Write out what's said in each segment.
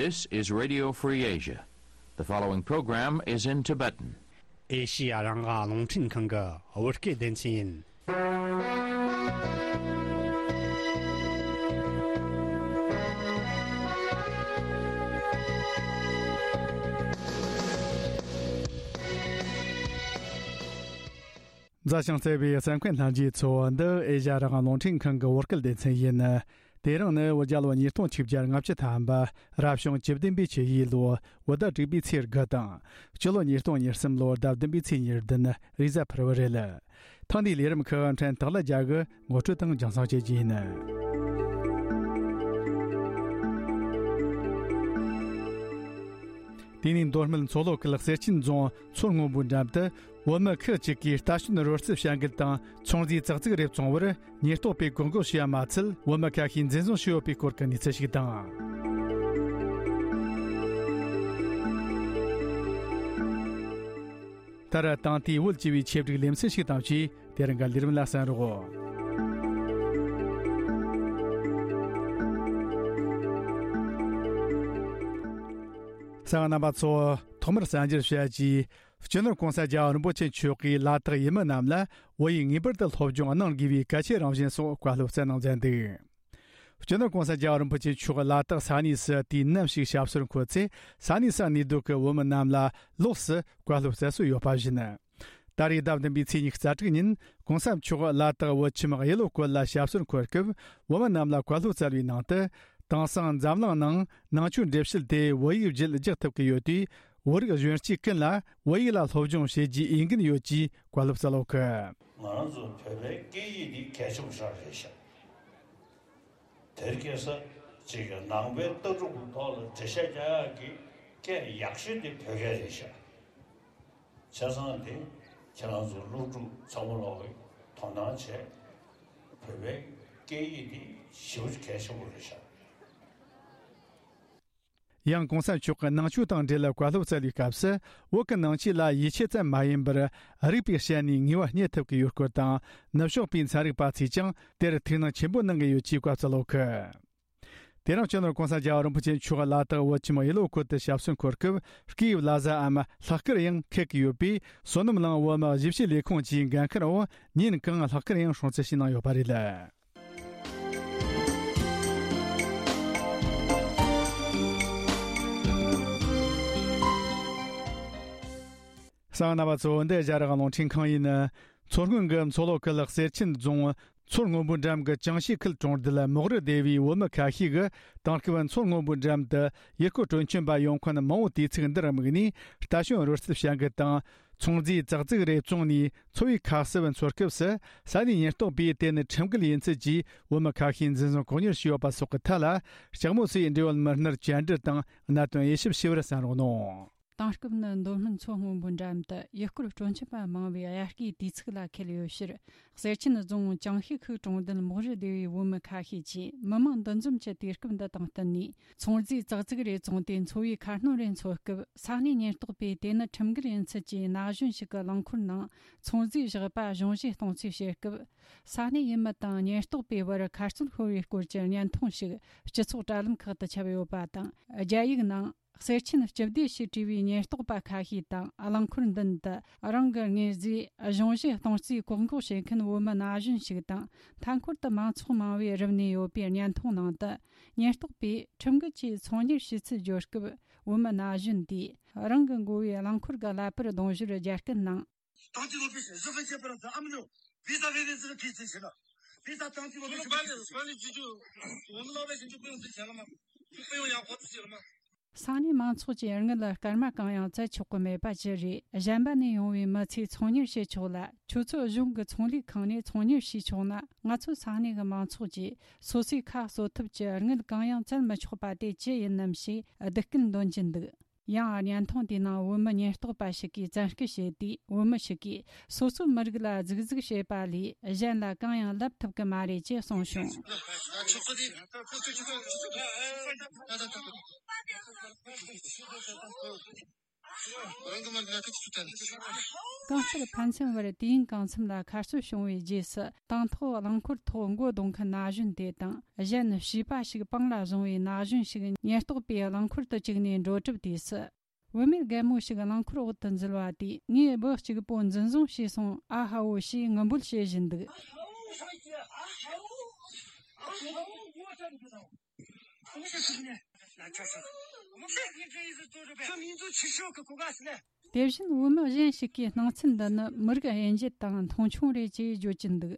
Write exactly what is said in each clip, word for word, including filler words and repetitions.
This is Radio Free Asia. The following program is in Tibetan. ཨེ་ཤི་ཡ་རང་དབང་རླུང་འཕྲིན་ཁང་གི་བོད་སྐད་སྡེ་ཚན་ཡིན། མཛའ་ཞིང་བརྩེ་བའི་གསན་མཁན་ལྷན་རྒྱས་ཚོ། འདི་ཨེ་ཤ་ཡ་རང་དབང་རླུང་འཕྲིན་ཁང་གི་བོད་སྐད་སྡེ་ཚན་ཡིན། དེ་རིང་ནི་བོད་རྒྱལ་ལོ་ཉིས་སྟོང་ཆིག་བརྒྱ་ལྔ་བཅུ་ཐམ་པ། རབ་བྱུང་བཅུ་བདུན་པའི་ཆུ་ཡོས་ལོ། བོད་ཟླ་དྲུག་པའི་ཚེས་དགུ་དང་། སྤྱི་ལོ་ཉིས་སྟོང་ཉེར་གསུམ་ལོ་ཟླ་བདུན་པའི་ཚེས་ཉེར་བདུན། རེས་གཟའ་ཕུར་བུ་རེད། ཐེངས་འདིའི་ལས་རིམ་ཁག་ཕྲན་སྟག་ལྷ་རྒྱལ་གྱིས་ངོ་སྤྲོད་དང་རྒྱང་སྲིང་བྱེད་རྒྱུ་ཡིན། དེ་ནས་མདོ་སྨད་མཚོ་ལྷོ་ཁུལ་གསེར་ཆེན་རྫོང་མཚོ་སྔོན་པོའི་འགྲམ་དུ། བོད་མི་ཁག་ཅིག་གིས་རྟ་བཞོན་རོལ་རྩེད་བྱ་འགུལ་དང་ཚོང་རྫས་ཙག་ཙིག་རེ་བཙོང་བར་ཉེན་རྟོག་པས་བཀག་འགོག་བྱས་པ་མ་ཚད། བོད་མི་ཁ་ཤས་འཛིན་བཟུང་བྱས་ཡོད་པའི་སྐོར་གྱི་གནས་ཚུལ་ཞིག་དང་། མཐར་ད་ལྟའི་བོད་སྤྱི་པའི་ཆེད་སྒྲིག་ལེ་ཚན་ཞིག་དང་བཅས། དེ་རིང་གི་ལས་རིམ་ལ་གསན་རོགས། གསན་མཁན་རྣམ་པ་ཚོ། ཐོག་མར་གསར་འགྱུར་བཤད་རྒྱུ། སྤྱི་ནོར་༸གོང་ས་༸རྒྱལ་བ་རིན་པོ་ཆེ་མཆོག་གིས་ལ་དྭགས་ཡུལ་མི་རྣམས་ལ་བོད་ཡིག་ངེས་པར་དུ་སློབ་སྦྱོང་གནང་དགོས་པའི་གལ་ཆེའི་རང་བཞིན་སོགས་བཀའ་སློབ་སྩལ་གནང་མཛད་འདུག་སྤྱི་ནོར་༸གོང་ས་༸རྒྱལ་བ་རིན་པོ་ཆེ་མཆོག་ལ་དྭགས་ས་གནས་སུ་དུས་ནམ་ཞིག་ཞབས་སོར་འཁོད་ཚེ། ས་གནས་སུ་གནས་སྡོད་ཀྱི་བོད་མི་རྣམས་ལ་ལོགས་སུ་བཀའ་སློབ་སྩལ་སྲོལ་ཡོད་པ་བཞིན། ད་རེས་ཟླ་བདུན་པའི་ཚེས་ཉི་ཤུ་རྩ་དྲུག་ཉིན་༸གོང་ས་མཆོག་ལ་དྭགས་བོད་ཁྱིམ་གཡུ་ལོ་སྐོར་ལ་ཞབས་སོར་འཁོད་སྐབས། བོད་མི་རྣམས་ལ་བཀའ་སློབ་སྩལ་བའི་ནང་དུ། དེང་སང་འཛམ་གླིང་ནང་ནང་ཆོས་འགྲེལ་བཤད་དེ་བོད་ཡིག་བརྒྱུད་རྒྱག་ཐུབ་ཀྱི་ཡོད་དུས། བོད་རིགས་གཞོན་སྐྱེས་ཀུན་ལ་བོད་ཡིག་ལ་སློབ་སྦྱོང་བྱེད་རྒྱུའི་འོས་འགན་ཡོད་ཅེས་བཀའ་སློབ་སྩལ་ཡོད་ཀི། ང་རང་ཚོ་བོད་པའི་སྐད་ཡིག་འདི་གལ་ཆེན་པོ་ཞིག་རེད་ཤག་དེར་སྐྱེས་ས་ཅིག་གི་ནང་པའི་ལྟ་གྲུབ་ཀྱི་ཐོག་ལ་འགྲེལ་བཤད་རྒྱག་ཡག་གི་སྐད་ཡག་ཤོས་དེ་བོད་སྐད་རེད་ཤག་བྱས་ཙང་དེ་ཁྱེད་རང་ཚོ་སློབ་ཕྲུག་ཚང་མ་ལོག་གིས་དོ་སྣང་བྱས། བོད་པའི་སྐད་ཡིག་འདི་ཞེ་པོ་ཅིག་གལ་ཆེན་པོ་རེད་ཤག་ཡང་༸གོང་ས་མཆོག་གིས་ནང་ཆོས་དང་འབྲེལ་བའི་བཀའ་སློབ་སྩལ་བའི་སྐབས་སུ། བོད་ཀྱི་ནང་ཆོས་ལ་ཡིད་ཆེས་ཙམ་མ་ཡིན་པར། རིག་པའི་ཞལ་ནས་ངེས་པ་རྙེད་ཐུབ་ཀྱི་ཡོད་སྐོར་དང་། ནུབ་ཕྱོགས་པའི་ཚན་རིག་པ་ཚོས་ཀྱང་དེར་ཐུགས་སྣང་ཆེན་པོ་གནང་གི་ཡོད་ཅེས་བཀའ་སྩལ་ཡོད་ཀི། དེ་རིང་སྤྱི་ནོར་༸གོང་ས་༸རྒྱལ་བ་རིན་པོ་ཆེ་མཆོག་ལ་དྭགས་བོད་ཁྱིམ་གཡུ་ལོ་སྐོར་དུ་ཞབས་སོར་འཁོད་སྐབས། སྐད་ཡིག་བླ་གཟའ་འམ་ལྷག་དཀར་ཡང་འཁེལ་གྱི་ཡོད་པས། བསོད་ནམས་གླིང་བོད་མི་གཞིས་བྱེས་ལས་ཁུངས་ཀྱི་འགན་འཁུར་བ་ཉིན་གང་ལྷག་དཀར་ཡང་སྲུང་བརྩི་ཞུས་གནང་ཡོད་པ་རེད། གསན་མཁན་རྣམ་པ་ཚོ། འདི་ཨེ་ཤ་ཡ་རང་དབང་རླུང་འཕྲིན་ཁང་ཡིན། མཚོ་སྔོན་གྱི་མཚོ་ལྷོ་ཁུལ་གསེར་ཆེན་རྫོང་མཚོ་སྔོན་པོའི་འགྲམ་གྱི་ཅང་ཤིས་ཁུལ་གྲོང་རྡལ་མོག་རི་སྡེ་བའི་བོད་མི་ཁ་ཤས་ཀྱིས། དེང་སྐབས་མཚོ་སྔོན་པོའི་འགྲམ་དུ་ཡུལ་སྐོར་སྤྲོ་འཆམ་པ་ཡོང་མཁན་མང་བོ་དུས་ཚིགས་འདིར་དམིགས་ནས། རྟ་བཞོན་རོལ་རྩེད་བྱ་འགུལ་དང་། ཚོང་རྫས་ཙག་ཙིག་རེ་བཙོངས་ནས་འཚོ་བའི་ཁ་གསབ་འཚོལ་སྐབས་སུ། ས་གནས་ཉེན་རྟོག་པས་དེ་ནི་ཁྲིམས་འགལ་ཡིན་ཚུལ་གྱིས་བོད་མི་ཁ་ཤས་འཛིན་བཟུང་བཀག་ཉར་བྱས་ཡོད་པ་སོགས་ཀྱི་ཐད་ལ། ལྕགས་མོ་སོའི་འབྲེལ་ཡོད་མི་སྣར་བཅར་འདྲི་དང་གནད་དོན་དབྱེ་ཞིབ་ཞུ་བར་གསན་རོགས་གནང་། དེང་སྐབས་ནི་མདོ་སྨད་མཚོ་སྔོན་པོའི་འགྲམ་དུ་ཡུལ་སྐོར་སྤྲོ་འཆམ་པ་མང་བའི་དབྱར་སྐྱེས་དུས་ཚིགས་ལ་འཁེལ་ཡོད་ཕྱིར། གསེར་ཆེན་རྫོང་ཅང་ཤིས་ཁུལ་གྲོང་རྡལ་མོག་རི་སྡེ་བའི་བོད་མི་ཁ་ཤས་ཀྱིས་མི་མང་འདུ་འཛོམས་ཀྱི་དུས་སྐབས་འདི་དང་བསྟུན་ནས། ཚོང་རྫས་ཙག་ཙིག་རེ་བཙོངས་ཏེ་འཚོ་བའི་ཁ་སྣོན་རེ་འཚོལ་སྐབས། ས་གནས་ཉེན་རྟོག་པས་དེ་ནི་ཁྲིམས་འགལ་ཡིན་ཚུལ་གྱིས་ན་གཞོན་ཞིག་གི་རླངས་འཁོར་ནང་ཚོང་རྫས་བཞག་པ་གཞུང་བཞེས་གཏོང་རྩིས་བྱེད་སྐབས། ས་གནས་ཡུལ་མི་དང་ཉེན་རྟོག་པའི་བར་ཁ་རྩོད་ཤོར་བའི་སྐོར་གྱི་བརྙན་ཐུང་ཞིག་སྤྱི་ཚོགས་དྲ་ལམ་ཁག་ཏུ་ཁྱབ་ཡོད་པ་དང་། རྒྱ་ཡིག་ནང་། གསེར་ཆེན་སྤྱི་བདེ་ཞེས་བྲིས་པའི་ཉེན་རྟོག་པ་ཁ་ཤས་དང་། རླངས་འཁོར་མདུན་དུ་རང་གི་དངོས་རྫས་གཞུང་བཞེས་གཏོང་རྩིས་བཀག་འགོག་བྱེད་མཁན་བོད་མི་ན་གཞོན་ཞིག་དང་། མཐའ་འཁོར་དུ་མང་ཚོགས་མང་བོས་རུབ་གནས་ཡོད་པའི་བརྙན་ཐུང་ནང་དུ། ཉེན་རྟོག་པས་ཁྲིམས་འགལ་གྱིས་ཚོང་གཉེར་བྱེད་ཚུལ་བརྗོད་སྐབས། བོད་མི་ན་གཞོན་དེས་རང་གི་མགོ་བའི་རླངས་འཁོར་གྱི་ཀླད་པར་གདུང་ཞོར་རྒྱ་སྐད་ནང་། 当地路边是十分简单的，咱们就比赛为人这个提升起来，比赛当地路边是管理管理局就，我们老百姓就不用挣钱了吗？就不用养活自己了吗？ ས་གནས་མང་ཚོགས་ཀྱིས་དངུལ་སྐར་མ་གང་ཡང་བཙལ་ཆོག་གི་མེད་པ་ཅི་རེད། གཞན་པ་ནས་ཡོང་བའི་མི་ཚོས་ཚོང་གཉེར་བྱེད་ཆོག་ལ། ཁྱོད་ཚོ་གཞུང་གི་ཚོང་ལས་ཁང་ནས་ཚོང་གཉེར་བྱས་ཆོག་ན། ང་ཚོ་ས་གནས་ཀྱི་མང་ཚོགས་ཀྱིས་སོ་སོའི་ཁ་གསོ་ཐབས་ཀྱི་དངུལ་གང་ཡང་བཙལ་མི་ཆོག་པ་དེ་ཅི་ཡིན་ནམ་ཞེས་སྡིགས་སྐུལ་འདོན་གྱིན་འདུག་ཡང་བརྙན་ཐུང་དེའི་ནང་བོད་མི་ཉེན་རྟོག་པ་ཞིག་གིས་བཙན་སྐུལ་བྱས་དུས། བོད་མི་ཞིག་གིས་སོ་སོའི་མི་རིགས་ལ་ཟུག་གཟུག་བྱེད་པ་ལས་གཞན་ལ་གང་ཡང་ལབ་ཐུབ་ཀྱི་མ་རེད་ཅེས་གསུངས་བྱུང་། རང་གི་མ་ལ་ཁ་ཆུ་ཆུ་དང་། གང་ལྟར་ཕན་ཚུན་བར་དུས་ཡུན་གང་འཚམ་ལ་ཁ་གསོ་བྱུང་བའི་རྗེས་སུ། དང་ཐོག་རླངས་འཁོར་ཐོག་མགོ་རྡུང་མཁན་ན་གཞོན་དེ་དང་། གཞན་བྱིས་པ་ཞིག་པང་ལ་བཟུང་བའི་ན་གཞོན་ཞིག་ཉེན་རྟོག་པས་རླངས་འཁོར་དུ་བཅུག་ནས་འགྲོ་གྲབས་དུས་སུ། བུད་མེད་རྒན་མོ་ཞིག་རླངས་འཁོར་འོག་ཏུ་འཛུལ་བ་དེས། ངའི་བུ་གཅིག་པོ་འཛིན་བཟུང་བྱས་སོང་ཨ་ཧ་བོ་ཞེས་ངུ་འབོད་བྱེད་བཞིན་འདུག། དེ་བཞིན་བུད་མེད་གཞན་ཞིག་གིས་སྣང་ཚུལ་འདི་ནི་མི་རིགས་དབྱེ་འབྱེད་དང་མཐོང་ཆུང་རེད་ཅེས་བརྗོད་ཀྱིན་འདུག།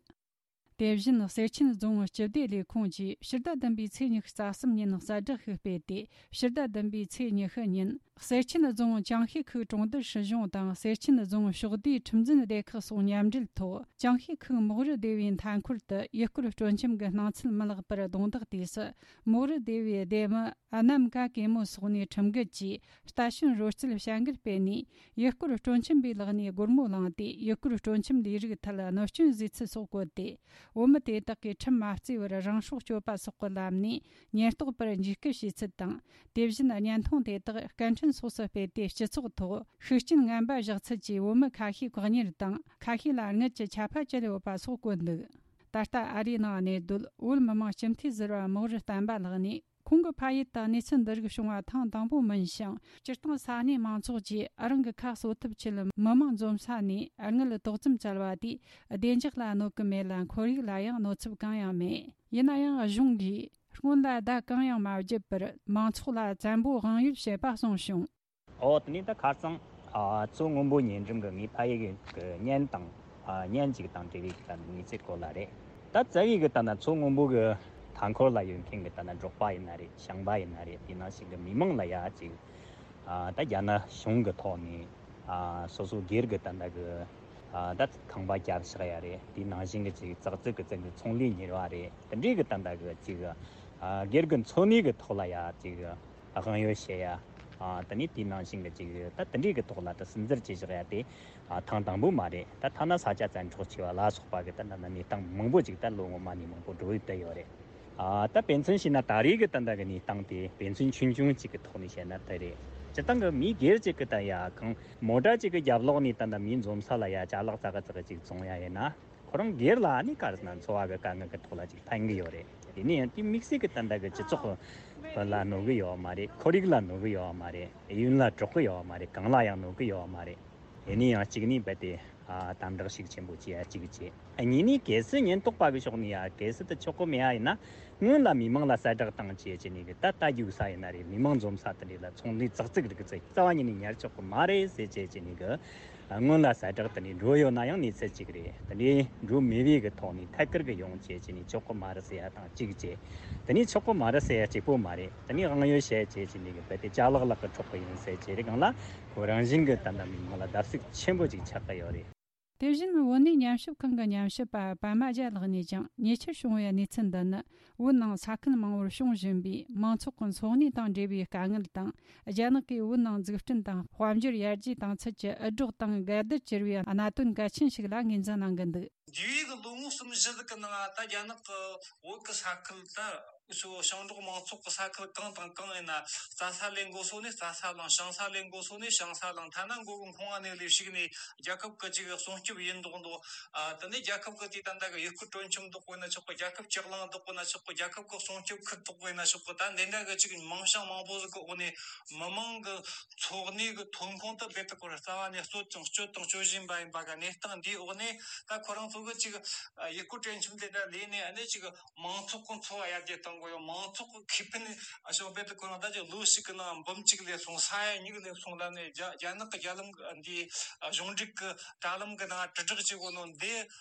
དེ་བཞིན་གསེར་ཆེན་རྫོང་སྤྱི་བདེ་ལས་ཁུངས་ཀྱིས་ཕྱི་ཟླ་བདུན་པའི་ཚེས་ཉི་ཤུ་རྩ་གསུམ་ཉིན་གསལ་བསྒྲགས་ཤིག་སྤེལ་ཏེ། ཕྱི་ཟླ་བདུན་པའི་ཚེས་ཉི་ཤུ་ཉིན་གསེར་ཆེན་རྫོང་ཅང་ཤེས་ཁུལ་གྲོང་རྡལ་སྲིད་གཞུང་དང་གསེར་ཆེན་རྫོང་ཕྱོགས་བསྡུས་ཁྲིམས་འཛིན་སྡེ་ཁག་སོགས་མཉམ་འབྲེལ་ཐོག་ཅང་ཤེས་ཁུལ་མོག་རི་སྡེ་བའི་མཐའ་འཁོར་དུ་ཡུལ་སྐོར་སྤྲོ་འཆམ་གྱི་སྣང་ཚུལ་མི་ལེགས་པར་གདོང་བདག་དུས་སུ། མོག་རི་སྡེ་བའི་སྡེ་མི་ཨ་ནམ་ཀ་ཀེ་མོ་སོགས་ནས་ཁྲིམས་འགལ་གྱིས་རྟ་ཞོན་རོལ་རྩེད་བྱ་འགུལ་སྤེལ་ནས། ཡུལ་སྐོར་སྤྲོ་འཆམ་པའི་ལག་ནས་སྒོར་མོ་བླངས་ཏེ། ཡུལ་སྐོར་སྤྲོ་འཆམ་ལས་རིགས་ཐད་གནོད་སྐྱོན་བཟོས་ཚུལ་སོགས་བཀོད་དེ། བུད་མེད་དེ་དག་གིས་ཁྲིམས་མ་བརྩིས་པར་རང་སྲོག་གཅོད་པ་སོགས་ཀྱི་ལམ་ནས་ཉེན་རྟོག་པར་འཇིགས་སྐུལ་བྱས་ཚུལ་དང་། དེ་བཞིན་བརྙན་ཐུང་དེ་དག་སྐད་འཕྲིན་སོགས་སུ་སྤེལ་ཏེ། སྤྱི་ཚོགས་ཐོག་ཤུགས་རྐྱེན་ངན་པ་བཞག་ཚུལ་གྱིས་བུད་མེད་ཁ་ཤས་བཀག་ཉར་དང་། ཁ་ཤས་ལ་རྔུལ་གྱི་ཆད་པ་བཅད་ཡོད་པ་སོགས་བཀོད་འདུག། ད་ལྟ་ཨ་རིའི་ནང་གནས་སྡོད་བོད་མི་མང་སྤྱི་འཐུས་ཟུར་པ་མོག་རི་བསྟན་པ་ལགས་ནས། ཁོང་གི་ཕ་ཡུལ་དུ་གནས་ཚུལ་འདི་རིགས་བྱུང་བ་ཐེངས་དང་པོ་མིན་ཞིང་། སྤྱིར་བཏང་ས་གནས་མང་ཚོགས་ཀྱིས་རང་གི་ཁ་གསོ་ཐབས་ཆེད་མི་མང་འཛོམས་ས་ནས་དངུལ་ཏོག་ཙམ་བཙལ་བ་དེས་བདེ་འཇགས་ལ་གནོད་གི་མེད་ལ། ཁོར་ཡུག་ལ་ཡང་གནོད་ཚབས་གང་ཡང་མེད། ཡིན་ན་ཡང་གཞུང་གིས་སྔོན་ལ་བརྡ་གང་ཡང་མ་བརྒྱབ་པར་མང་ཚོགས་ལ་བཙན་པོ་དབང་ཡོད་བྱེད་པ་གསུངས་བྱུང་། ཨོ། དེ་ནས་ད་ཁ་རྩང་། ཨ། མཚོ་སྔོན་པོ་ཉེ་འགྲམ་གི་ངའི་ཕ་ཡུལ་གི་གཉེན་དང་། ཨ། གཉེན་ཅིག་དང་འབྲེལ་བའི་གི་ད་གནས་ཚུལ་སྐོར་ལ་རེད། ད་རྩ་བའི་གི་ད་ན་མཚོ་སྔོན་པོ་གི་མཐའ་འཁོར་ལ་ཡོད་མཁན་གི་ད་ན་འབྲོག་པ་ཡིན་ན་རེད། ཞིང་པ་ཡིན་ན་རེད། དེ་ནང་བཞིན་གི་མི་མང་ལ་ཡ་ཅིག། ཨ། ད་རྒྱ་ནག་གཞུང་གི་ཐོག་ནས། ཨ། སོ་སོ་སྒེར་གི་ད་ད་གི། ཨ། ད་ཁང་པ་རྒྱབ་བཞག་ཡ་རེད། དེ་ནང་བཞིན་གི་ཅིག་ཙག་ཙིག་གི་ཙིག་གི་ཚོང་ལས་གཉེར་བ་རེད། དེ་འདྲའི་གི་ད་ད་གི་ཅིག། ཨ། སྒེར་གི་འཚོ་གནས་གི་ཐོག་ལ་ཡ་ཅིག་དབང་ཡོད་བྱེད་ཡ། ཨ། དེ་ནས་དེའི་ནང་བཞིན་གྱི་ཅིག་ད་དེ་འདྲའི་གི་ཐོག་ལ་ད་སུན་གཙེར་བྱེད་བཞག་ཡ་དེ། ཨ། ཐེངས་དང་པོ་མ་རེད། ད་ཐ་ན་ས་ཆ་བཙན་འཕྲོག་བྱས་པ་ལ་སོགས་པ་གི་ད་ད་ན་གནས་སྟངས་མང་པོ་ཅིག་ད་ལོ་སྔོན་མ་ནས་མང་པོ་འགྲོ་ཡི་བསྡད་ཡོད་རེད། ཨ། ད་དཔེ་མཚོན་བྱས་ན་ད་རེས་གི་ད་ད་གི་གནས་སྟངས་དེ་དཔེ་མཚོན་ཆུང་ཆུང་ཅིག་གི་ཐོག་ནས་བཤད་ན་དེ་རེད། སྤྱིར་བཏང་གི་མི་སྒེར་ཅིག་གི་ད་ཡ་གང་མོ་ཊ་ཅིག་གི་རྒྱབ་ལོགས་ནས་ད་ད་མི་འཛོམས་ས་ལ་ཡ་ཅ་ལག་ཙག་གི་ཙག་གི་ཅིག་བཙོང་ཡ་ཡིན་ན། ཁོ་རང་སྒེར་ལ་ནི་ག་རེ་ཟེར་ན་འཚོ་བ་གི་དཀའ་ངལ་གི་ཐོག་ལ་ཅིག་ཕན་གི་ཡོད་རེད། དེ་ནས་ཡང་དེ་དམིགས་བསལ་གི་ད་ལྟ་གི་སྤྱི་ཚོགས་ལ་གནོད་གི་ཡོད་མ་རེད། ཁོར་ཡུག་ལ་གནོད་གི་ཡོད་མ་རེད། ཡུན་ལ་གྲོགས་གི་ཡོད་མ་རེད། གང་ལ་ཡང་གནོད་གི་ཡོད་མ་རེད། དེ་ནས་ཡང་གཅིག་ནི་རྦད་དེ། ཨ། དམ་དྲག་ཤུགས་ཆེན་པོ་བྱེད་ཡ་གཅིག་བྱེད། ཨ། གཉིས་ནི་གལ་སྲིད་ཉེན་རྟོག་པ་གི་ཕྱོགས་ནས་ཡ་གལ་སྲིད་དེ་ཆོག་གི་མེད་ཡ་ཡིན་ན། སྔོན་ལ་མི་མང་ལ་གསལ་བསྒྲགས་བཏང་བྱས་བྱས་ནས་གི་ད་ལྟ་རྒྱུག་ས་ཡིན་ན་རེད། མི་མང་འཛོམས་ས་དེ་འདྲ་ལ་ཚོང་ལས་ཙག་ཙིག་རིགས་ཚོ་རྩ་བ་ཉིད་ནས་ཉར་ཆོག་གི་མ་རེད་ཟེར་བྱས་བྱས་ནས་གི། སྔོན་ལ་གསལ་བསྒྲགས་དེ་འདྲ་འགྲོ་ཡོད་ན་ཡང་གནས་ཚུལ་གཅིག་རེད། དེ་འདྲ་འགྲོ་མེད་པའི་གི་ཐོག་ནས་ཐད་ཀར་གི་ཡོང་བྱས་བྱས་ནས་ཆོག་གི་མ་རེད་ཟེར་ཡ་དང་གཅིག་བྱས། དེ་ནས་ཆོག་གི་མ་རེད་ཟེར་ཡ་གཅིག་པོ་མ་རེད། དེ་ནས་དབང་ཡོད་བྱས་བྱས་བྱས་ནས་གི་རྦད་དེ་ཅ་ལག་ལག་གི་འཕྲོག་གི་ཡིན་ཟེར་བྱས་རེད། གང་ལ་ཁོ་རང་བཞིན་གི་ད་ལྟ་མི་མང་ལ་བརྡབ་གསིག་ཆེན་པོ་ཅིག་ཆགས་ཀྱི་ཡོད་རེད། དེ་བཞིན་བོད་གནས་ཉམས་ཞིབ་ཁང་གི་ཉམས་ཞིབ་པ་པད་མ་རྒྱལ་ལགས་ནས་ཀྱང་ཉེ་ཆར་བྱུང་བའི་གནས་ཚུལ་འདི་ནི། བོད་ནང་ས་ཁུལ་མང་བོར་བྱུང་བཞིན་པའི་མང་ཚོགས་ཀྱི་འཚོ་གནས་དང་འབྲེལ་བའི་དཀའ་ངལ་དང་། རྒྱ་ནག་གིས་བོད་ནང་འཛུགས་སྐྲུན་དང་དཔལ་འབྱོར་ཡར་རྒྱས་བཏང་ཚུལ་གྱི་འུད་སྒྲོག་དང་འགལ་ཟླར་གྱུར་བའི་གནད་དོན་གལ་ཆེན་ཞིག་ལ་ངོས་འཛིན་གནང་གི་འདུག། འདས་པའི་གི་ལོ་ངོ་གསུམ་བཞི་ཟིག་གི་ནང་ད་རྒྱ་ནག་གི་བོད་གི་ས་ཁུལ་ད་ཞིང་འབྲོག་མང་ཚོགས་ཀྱི་ས་ཁུལ་གང་དང་གང་ཡིན་ན། རྩྭ་ས་ལས་འགོ་སོ་ནས་རྩྭ་ས་བླངས། ཞིང་ས་ལས་འགོ་སོ་ནས་ཞིང་ས་བླངས། ཐ་ན་མགོ་གི་མཁོ་བ་ནས་ལས་ཞིག་ནས་རྒྱལ་ཁབ་ཀྱི་ཅིག་སྲུང་སྐྱོབ་ཡིན་མདོག་མདོག། ཨ། དེ་ནས་རྒྱལ་ཁབ་ཀྱི་དེ་ད་ལྟ་གི་ཡུལ་སྐོར་སྤྲོ་འཆམ་འདོགས་པ་ཡིན་ན་ཆོག་གི། རྒྱལ་ཁབ་ལྕགས་གླིང་འདོགས་པ་ཡིན་ན་ཆོག་གི། རྒྱལ་ཁབ་ཀྱི་སྲུང་སྐྱོབ་ཁུལ་འདོགས་པ་ཡིན་ན་ཆོག་གི། ད་འདི་འདྲ་གི་ཅིག་མིང་བྱང་མང་པོ་ཟིག་གི་འོག་ནས་མི་མང་གི་འཚོ་གནས་གི་ཐོན་ཁུངས་དེ་རྦད་དེ་ཁོ་རང་རྩ་བ་ནས་གསོད་ཅིང་སྤྱོད་དང་སྤྱོད་བཞིན་པ་ཡིན་པ་གི་གནས་སྟངས་འདིའི་འོག་ནས། ད་ཁོ་རང་ཚོ་གི་ཅིག་ཡུལ་སྐོར་སྤྲོ་འཆམ་དེ་འདྲ་ལས་ནས་ཨ་ནི་ཅིག་མང་ཚོགས་ཀྱི་འཚོ་བ་ཡར་རྒྱས་གཏོང་དགོས་ཡོད། མང་ཚོགས་ཀྱི་ཁེ་ཕན་ཞོག་རྦད་དེ་ཁོ་རང་ད་ཅིག་ལོ་ཞིག་གི་ནང་འབུམ་གཅིག་ལས་སོང་། ས་ཡ་གཉིས་ལས་སོང་ལབ་ནས་རྒྱ་རྒྱ་ནག་གི་རྒྱ་ལམ་འདི་གཞུང་འབྲེལ་གྱི་དྲ་ལམ་གྱི་ནང་དྲིལ་བསྒྲགས་བྱེད་དགོས་ནོ་འདི།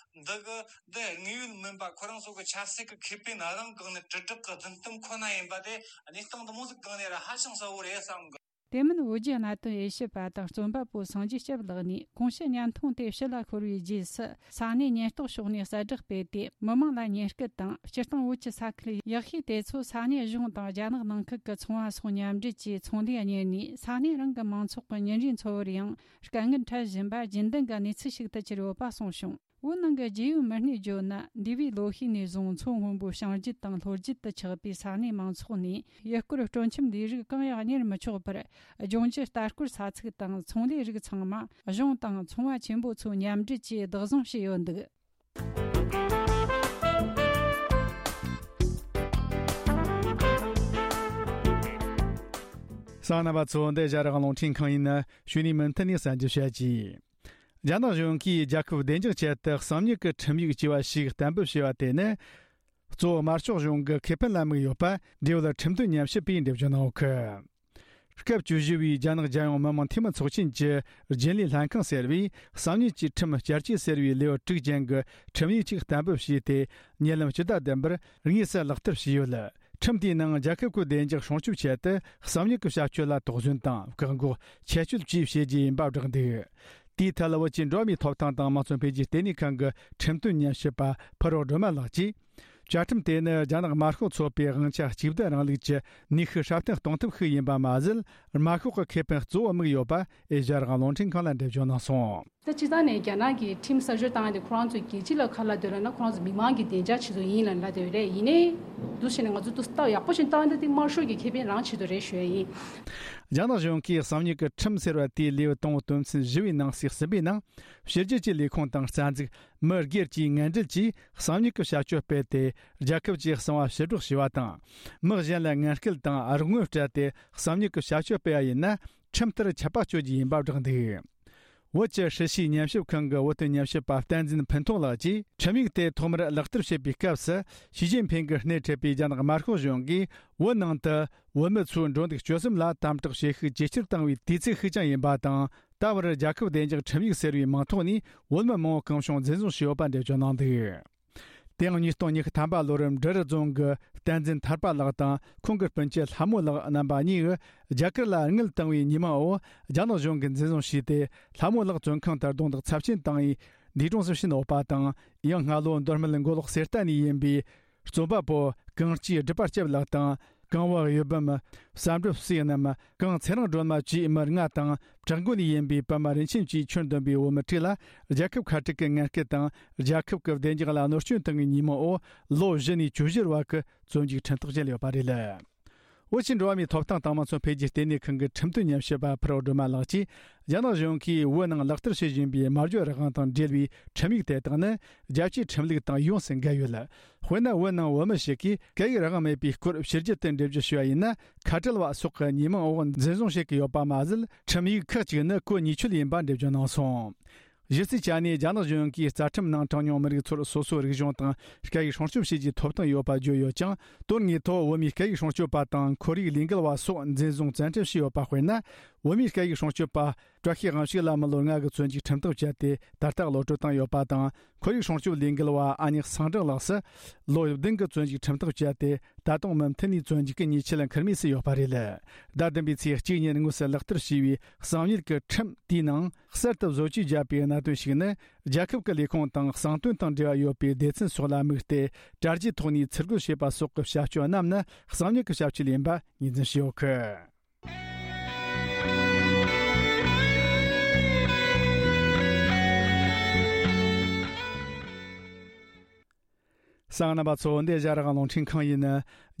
འདི་གི་འདི་དངོས་ཡོད་མིན་པ། ཁོ་རང་ཚོ་གི་ཆབ་སྲིད་ཀྱི་ཁེ་ཕན་རང་སྒང་ནས་དྲིལ་བསྒྲགས་ཀྱི་རྫུན་གཏམ་ཁོ་ན་ཡིན་པ་དེ་གནས་སྟངས་འདི་མོ་ཟིག་སྒང་ནས་ར་ཧ་ཅང་གསལ་བོ་རེད་བསམ་གི། དེ་མིན་བོད་བརྒྱུད་གནད་དོན་དབྱེ་ཞིབ་པ་དང་རྩོམ་པ་པོ་སངས་རྒྱས་སྐྱབས་ལགས་ནས། གོང་ཞུས་བརྙན་ཐུང་དེ་ཕྱི་ལ་འཁོར་བའི་རྗེས་སུ། ས་གནས་ཉེན་རྟོག་ཕྱོགས་ནས་གསལ་བསྒྲགས་སྤེལ་ཏེ། མི་མང་ལ་ཉེན་སྐུལ་དང་། སྤྱིར་བཏང་བོད་ཀྱི་ས་ཁུལ་ཡག་ཤོས་དེ་ཚོ་ས་གནས་གཞུང་དང་རྒྱ་ནག་ནང་ཁུལ་གྱི་ཚོང་བ་སོགས་མཉམ་འབྲེལ་གྱིས་ཚོང་ལས་གཉེར་ནས། ས་གནས་རང་གི་མང་ཚོགས་ཀྱི་ཉིན་རེའི་འཚོ་བར་ཡང་དཀའ་ངལ་འཕྲད་བཞིན་པ་རྒྱུན་ལྡན་གྱི་གནས་ཚུལ་ཞིག་ཏུ་གྱུར་ཡོད་པ་གསུངས་བྱུང་། བོད་ནང་གི་རྒྱལ་ཡོངས་མི་སྣས་བརྗོད་ན། འདས་པའི་ལོ་ཤས་ནས་བཟུང་མཚོ་སྔོན་པོའི་བྱང་རྒྱུད་དང་ལྷོ་རྒྱུད་དུ་ཆགས་པའི་ས་གནས་མང་ཚོགས་ནས་ཡུལ་སྐོར་སྤྲོ་འཆམ་ལས་རིགས་གང་ཡང་གཉེར་མི་ཆོག་པར། ལྗོངས་རྒྱུ་ལྟ་སྐོར་ས་ཚིགས་དང་ཚོང་ལས་རིགས་ཚང་མ་གཞུང་དང་ཚོང་བ་ཆེན་པོ་ཚོ་མཉམ་འབྲེལ་གྱིས་བདག་བཟུང་བྱས་ཡོད་འདུག་གསན་མཁན་རྣམ་པ་ཚོ། འདི་ཨེ་ཤ་ཡ་རང་དབང་རླུང་འཕྲིན་ཁང་ཡིན། གཞུག་ནས་མུ་མཐུད་ནས་གསན་རྒྱུ་བྱ་རྒྱུ། རྒྱ་ནག་གཞུང་གིས་རྒྱལ་ཁབ་བདེ་འཇགས་ཆེད་དུ་གསང་མྱུལ་གྱི་ཁྲིམས་ཡིག་ཅེས་པ་ཞིག་གཏན་འབེབས་བྱས་པ་དེ་ནི། གཙོ་བོ་དམར་ཤོག་གཞུང་གི་ཁེ་ཕན་ལ་དམིགས་ཡོད་པ། འབྲེལ་ཡོད་ཁྲིམས་དོན་ཉམས་ཞིབ་པས་འགྲེལ་བརྗོད་གནང་ཡོད་གི། སྐབས་བཅུ་བཞི་བའི་རྒྱ་ནག་རྒྱལ་ཡོངས་མི་དམངས་འཐུས་མི་ཚོགས་ཆེན་གྱི་རྒྱུན་ལས་ལྷན་ཁང་ཟེར་བས། གསང་མྱུལ་གྱི་ཁྲིམས་བསྐྱར་བཅོས་ཟེར་བའི་ལེའུ་དྲུག་ཅན་གྱི་ཁྲིམས་ཡིག་ཅིག་གཏན་འབེབས་བྱས་ཏེ། ཉེ་ལམ་སྤྱི་ཟླ་བདུན་པར་དངོས་སུ་ལག་བསྟར་བྱས་ཡོད། ཁྲིམས་དེའི་ནང་རྒྱལ་ཁབ་ཀྱི་བདེ་འཇགས་སྲུང་སྐྱོབ་ཆེད་དུ་གསང་མྱུལ་གྱི་བྱ་སྤྱོད་ལ་དོགས་ཟོན་དང་བཀག་འགོག་ཆད་གཅོད་བཅས་བྱེད་རྒྱུ་ཡིན་པ་བསྒྲགས་འདུག། དེའི་ཐད་བོད་ཀྱི་འགྲོ་བ་མིའི་ཐོབ་ཐང་དང་དམངས་གཙོ་འཕེལ་རྒྱས་ལྟེ་གནས་ཁང་གི་ཁྲིམས་དོན་ཉམས་ཞིབ་པ་ཕུར་རོགས་སྒྲོལ་མ་ལགས་ཀྱིས། བཅའ་ཁྲིམས་དེ་ནི་རྒྱ་ནག་དམར་ཤོག་ཚོགས་པའི་དབང་ཆ་གཅིག་སྡུད་རིང་ལུགས་ཀྱི་ནུས་ཤུགས་སྲ་བརྟན་གཏོང་ཐབས་ཤིག་ཡིན་པ་མ་ཟད། དམར་ཤོག་གི་ཁེ་ཕན་གཙོ་བོ་དམིགས་ཡོད་པ་ཨེ་ཤ་ཡ་རང་དབང་རླུང་འཕྲིན་ཁང་ལ་འགྲེལ་བརྗོད་གནང་སོང་། ད་སྤྱིར་བཏང་ནས་རྒྱ་ནག་གིས་ཁྲིམས་གསར་བཅོས་བཏང་ཡ་དེ་ཁོ་རང་ཚོས་རྒྱལ་སྤྱི་ལ་ག་རེ་ལབ་འདོད་ལབ་ན། ཁོ་རང་ཚོ་མི་མང་གི་བདེ་འཇགས་ཆེད་དུ་ཡིན་ལབ་ལབ་བསྡད་ཡོད་རེད། ཡིན་ནའི་འདུག་བྱས་ནས་ང་ཚོ་འདུག་སེ་ལྟ་ཡག་པོ་ཞིག་བཏང་ཡ་དེ་དམར་ཤོག་གི་ཁེ་ཕན་རང་ཆེད་དུ་རེད་ཞུ་ཡ་ཡིན། རྒྱ་ནག་གཞུང་གིས་གསང་མྱུལ་གྱི་ཁྲིམས་ཟེར་བ་དེའི་ལེའུ་དང་པོ་དོན་ཚན་བཞི་བའི་ནང་གསེས་གསུམ་པའི་ནང་། ཕྱི་རྒྱལ་གྱི་ལས་ཁུངས་དང་རྩ་འཛུགས། མི་སྒེར་གྱིས་ངན་འབྲེལ་གྱིས་གསང་མྱུལ་གྱི་བྱ་སྤྱོད་སྤེལ་ཏེ། རྒྱལ་ཁབ་ཀྱི་གསང་བ་ཕྱིར་སྒྲོག་བྱས་པ་དང་། མི་གཞན་ལ་ངན་སྐུལ་དང་རོགས་དངུལ་སྤྲད་དེ་གསང་མྱུལ་གྱི་བྱ་སྤྱོད་སྤེལ་བ་ཡིན་ན། ཁྲིམས་ལྟར་ཆད་པ་གཅོད་རྒྱུ་ཡིན་པ་བསྒྲགས་འདུག། བོད་ཀྱི་ཧྲི་ཤིས་ཉམས་ཞིབ་ཁང་གི་བོད་དོན་ཉམས་ཞིབ་པ་བསྟན་འཛིན་ཕུན་ཐུང་ལགས་ཀྱིས། ཁྲིམས་ཡིག་དེ་ཐོག་མར་ལག་བསྟར་བྱེད་པའི་སྐབས་སུ། ཞི་ཅིན་ཕིང་གིས་སྣེ་ཁྲིད་པའི་རྒྱ་ནག་དམར་ཤོག་གཞུང་གིས་བོད་ནང་དུ་བོད་མི་ཚོའི་འགྲོ་འདུག་སྤྱོད་གསུམ་ལ་དམ་དྲག་བྱེད་ཤུགས་ཇེ་ཆེར་བཏང་བའི་དུས་ཚིགས་ཤིག་ཀྱང་ཡིན་པ་དང་། ད་བར་རྒྱལ་ཁབ་བདེ་འཇགས་ཁྲིམས་ཡིག་ཟེར་བའི་མིང་ཐོག་ནས་བོད་མི་མང་པོ་གང་བྱུང་འཛིན་བཟུང་བྱས་ཡོད་པ་འགྲེལ་བརྗོད་གནང་འདུག། དེ་ཡང་ཉིས་སྟོང་ཉི་ཤུ་ཐམ་པ་ལོར་འབྲི་རུ་རྫོང་གི་བསྟན་འཛིན་ཐར་པ་ལགས་དང་ཁོང་གི་སྤུན་མཆེད་ལྷ་མོ་ལགས་རྣམ་པ་གཉིས་རྒྱ་གར་ལ་དངུལ་བཏང་བའི་ཉེས་མིང་འོག་རྒྱ་ནག་གཞུང་གིས་འཛིན་བཟུང་བྱས་ཏེ། ལྷ་མོ་ལགས་བཙོན་ཁང་དུ་རྡུང་རྡེག་ཚབས་ཆེན་བཏང་བའི་འདས་གྲོངས་སུ་ཕྱིན་ཡོད་པ་དང་། ཡང་སྔ་ལོ་མདོ་སྨད་མགོ་ལོག་གསེར་རྟ་ནས་ཡིན་པའི་རྩོམ་པ་པོ་གངས་སྐྱིད་སྒྲུབ་པ་སྐྱབས་ལགས་དང་། གངས་བ་གཡུ་བུམ། བསམ་གྲུབ་བསོད་ནམས། གངས་ཚེ་རིང་སྒྲོལ་མ་བཅས་མི་ལྔ་དང་། བྲག་འགོ་ནས་ཡིན་པའི་པདྨ་རིན་ཆེན་བཅས་ཁྱོན་བསྡོམས་པའི་བོད་མི་དྲུག་ལ་རྒྱལ་ཁབ་ཁ་བྲལ་གྱི་ངན་སྐུལ་དང་། རྒྱལ་ཁབ་ཀྱི་བདེ་འཇགས་ལ་གནོད་སྐྱོན་བཏང་བའི་ཉེས་མིང་འོག་ལོ་བཞི་ནས་བཅུ་བཞི་བར་གྱི་བཙོན་འཇུག་ཁྲིམས་ཐག་བཅད་ཡོད་པ་རེད། བོད་ཀྱི་འགྲོ་བ་མིའི་ཐོབ་ཐང་དང་དམངས་གཙོ་འཕེལ་རྒྱས་ལྟེ་གནས་ཁང་གི་ཁྲིམས་དོན་ཉམས་ཞིབ་པ་ཕུར་རོ་སྒྲོལ་མ་ལགས་ཀྱིས། རྒྱ་ནག་གཞུང་གིས་བོད་ནང་ལག་བསྟར་བྱེད་བཞིན་པའི་སྨྲ་བརྗོད་རང་དབང་དང་འབྲེལ་བའི་ཁྲིམས་ཡིག་དེ་དག་ནི། རྒྱལ་སྤྱིའི་ཁྲིམས་ལུགས་དང་ཡོངས་སུ་འགལ་ཡོད། དཔེར་ན། བོད་ནང་བོད་མི་ཞིག་གིས་སྐད་ཡིག་རང་དབང་མེད་པའི་སྐོར་ཕྱི་རྒྱལ་དུ་འགྲེལ་བརྗོད་ཞུ་བ་ཡིན་ན། ཁ་བྲལ་བ་སོགས་ཀྱི་ཉེས་མིང་འོག་འཛིན་བཟུང་བྱེད་ཀྱི་ཡོད་པ་མ་ཟད། ཁྲིམས་ཡིག་ཁག་ཅིག་ནི་གོ་ཉེས་ཆོད་ཡིན་པ་འགྲེལ་བརྗོད་གནང་སོང་། གཞི་རྩའི་ཆ་ནས་རྒྱ་ནག་གཞུང་གིས་རྩ་ཁྲིམས་ནང་གྲངས་ཉུང་མི་རིགས་ཚོར་སོ་སོའི་རིག་གཞུང་དང་སྐད་ཡིག་སྲུང་སྐྱོབ་བྱེད་རྒྱུའི་ཐོབ་ཐང་ཡོད་པ་བརྗོད་ཡོད་ཀྱང་། དོན་དངོས་ཐོག་བོད་མིའི་སྐད་ཡིག་སྲུང་སྐྱོབ་པ་དང་ཁོར་ཡུག་ལས་འགུལ་བ་སོགས་འཛིན་བཟུང་བཙན་ཁྲིད་བྱས་ཡོད་པ། དཔེར་ན། བོད་མིའི་སྐད་ཡིག་སྲུང་སྐྱོབ་པ་བཀྲ་ཤིས་དབང་ཕྱུག་ལ་མི་ལོ་ལྔ་གི་བཙོན་འཇུག་ཁྲིམས་ཐག་བཅད་དེ། ད་ལྟ་གློད་གྲོལ་བཏང་ཡོད་པ་དང་། ཁོར་ཡུག་སྲུང་སྐྱོབ་ལས་འགུལ་བ་ཨ་ཉག་སངས་སྒྲོན་ལགས་སུ་ལོ་བདུན་གྱི་བཙོན་འཇུག་ཁྲིམས་ཐག་བཅད་དེ། ད་དུང་མུ་མཐུད་ནས་བཙོན་འཇུག་གི་ཉེས་ཆད་ལ་འཁུར་མུས་སུ་ཡོད་པ་རེད། ཟླ་བདུན་པའི་ཚེས་གཅིག་ཉིན་དངོས་སུ་ལག་བསྟར་བྱས་པའི་གསང་ཉུལ་གྱི་ཁྲིམས་དེའི་ནང་གསར་དུ་བཟོ་བཅོས་བརྒྱབ་པའི་གནད་དོན་ཞིག་ནི། རྒྱལ་ཁབ་ཀྱི་ལས་ཁུངས་དང་གསང་དོན་དང་འབྲེལ་བ་ཡོད་པའི་སྡེ་ཚན་སོགས་ལ་དམིགས་ཏེ། དྲ་རྒྱའི་ཐོག་ནས་ཚུར་རྒོལ་བྱེད་པ་སོགས་ཀྱི་བྱ་སྤྱོད་རྣམས་ནི་གསང་ཉུལ་གྱི་བྱ་སྤྱོད་ཡིན་པ་ངོས་འཛིན་བྱས་ཡོད་གི། གསན་མཁན་རྣམ་པ་ཚོ། འདི་ཨེ་ཤ་ཡ་རང་དབང་རླུང་འཕྲིན་ཁང་ཡིན།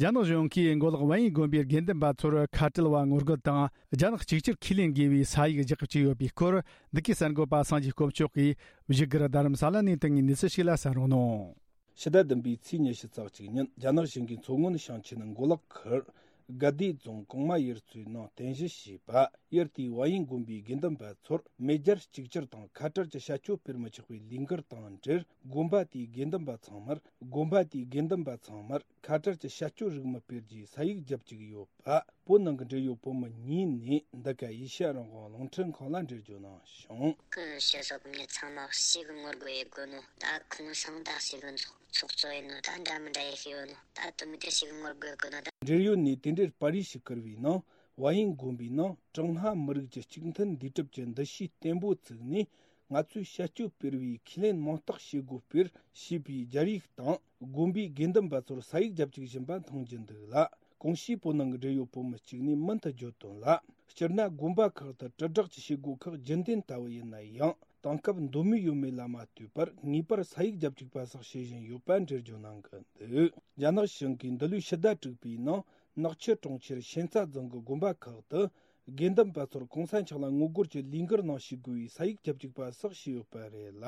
རྒྱ་ནག་གཞུང་གིས་མགོ་ལོག་ཝན་ཡིན་དགོན་པའི་དགེ་འདུན་པ་ཚོར་ཁ་བྲལ་བ་ངོ་རྒོལ་དང་རྒྱ་ནག་གཅིག་གྱུར་ཁས་ལེན་དགོས་པའི་ས་ཡིག་རྒྱག་བཅུག་ཡོད་པའི་སྐོར། འདི་གའི་གསར་འགོད་པ་སངས་རྒྱས་དཀོན་མཆོག་གིས་བཞུགས་སྒར་རྡ་རམ་ས་ལ་ནས་བཏང་བའི་གནས་ཚུལ་ཞིག་ལ་གསན་རོགས་གནང་། ཕྱི་ཟླ་བདུན་པའི་ཚེས་ཉི་ཤུ་རྩ་གཅིག་ཉིན། རྒྱ་ནག་གཞུང་གིས་མཚོ་སྔོན་ཞིང་ཆེན་མགོ་ལོག་ཁུལ་དགའ་བདེ་རྫོང་གོང་མ་ཡུལ་ཚོའི་ནང་རྟེན་གཞི་བྱས་པ་ཡུལ་དེའི་ཝན་ཡིན་དགོན་པའི་དགེ་འདུན་པ་ཚོར་མེས་རྒྱལ་གཅིག་གྱུར་དང་ཁ་བྲལ་གྱི་བྱ་སྤྱོད་སྤེལ་མི་ཆོག་པའི་ལས་འགུལ་དང་འབྲེལ། དགོན་པ་དེའི་དགེ་འདུན་པ་ཚང་མར། དགོན་པ་དེའི་དགེ་འདུན་པ་ཚང་མར་ཁ་བྲལ་གྱི་བྱ་སྤྱོད་རིགས་མི་སྤེལ་རྒྱུའི་ས་ཡིག་བརྒྱབ་བཅུག་ཡོད་པ། བོད་ནང་གི་འབྲེལ་ཡོད་བོད་མི་གཉིས་ནས་འདི་ག་ཨེ་ཤ་ཡ་རང་དབང་རླུང་འཕྲིན་ཁང་ལ་འགྲེལ་བརྗོད་གནང་བྱུང་། ཁོའི་སྤྱི་ཚོགས་མི་ཚང་མ་ཞེ་གི་ངོ་རྒོལ་ཡེད་དགོས་ནོ། ད་ཁོང་སང་ད་ཞེ་གི་ཚོགས་ཚོགས་གཙོ་ཡིན་ནོ། ད་འདྲ་མི་འདྲ་ཡེད་ཤེས་ཡོད་ནོ། ད་དུ་མི་དེ་ཞེ་གི་ངོ་རྒོལ་དགོས་ནོ། ད། འབྲེལ་ཡོད་ནས་དེ་འབྲེལ་པར་རིས་ཤིག་བསྐུར་བའི་ནང་། ཝན་ཡིན་དགོན་པའི་ནང་ཀྲུང་ཧྭ་མི་རིགས་ཀྱི་གཅིག་མཐུན་འདུས་གྲུབ་ཀྱི་འདུ་ཤེས་བརྟན་པོ་བཙུགས་ནས། ང་ཚོས་བྱ་སྤྱོད་སྤེལ་བའི་ཁས་ལེན་མིང་རྟགས་བྱེད་སྒོ་སྤེལ་ཞེས་པའི་སྦྱར་ཡིག་དང་། དགོན་པའི་དགེ་འདུན་པ་ཚོར་ས་ཡིག་རྒྱབ་བཅུག་བཞིན་པ་མཐོང་རྒྱུ་འདུག་ལ། གོང་ཞུས་བོད་ནང་གི་འབྲེལ་ཡོད་བོད་མི་གཅིག་ནས་མུ་མཐུད་བརྗོད་དོན་ལ། སྤྱིར་ན་དགོན་པ་ཁག་ཏུ་དྲིལ་བསྒྲགས་ཀྱི་བྱེད་སྒོ་ཁག་རྒྱུན་ལྡན་ལྟ་བུ་ཡིན་ན་ཡང་། དེང་སྐབས་མདོ་མེད་ཡོད་མེད་ལ་མ་ལྟོས་པར་ངེས་པར་ས་ཡིག་རྒྱ་བསྒྲིགས་པ་སོགས་བྱེད་བཞིན་ཡོད་པ་འགྲེལ་བརྗོད་གནང་གི་འདུག་རྒྱ་ནག་གཞུང་གིས་འདི་ལོའི་ཕྱི་ཟླ་དྲུག་པའི་ནང་ནག་ཆུ་གྲོང་ཁྱེར་ཤན་རྩ་རྫོང་གི་དགོན་པ་ཁག་ཏུ། དགེ་འདུན་པ་ཚོར་གོང་ས་མཆོག་ལ་ངོ་རྒོལ་གྱི་ལས་འགུལ་ནང་ཞུགས་དགོས་པའི་ས་ཡིག་རྒྱ་བསྒྲིགས་པ་སོགས་བྱས་ཡོད་པ་རེད་ལ།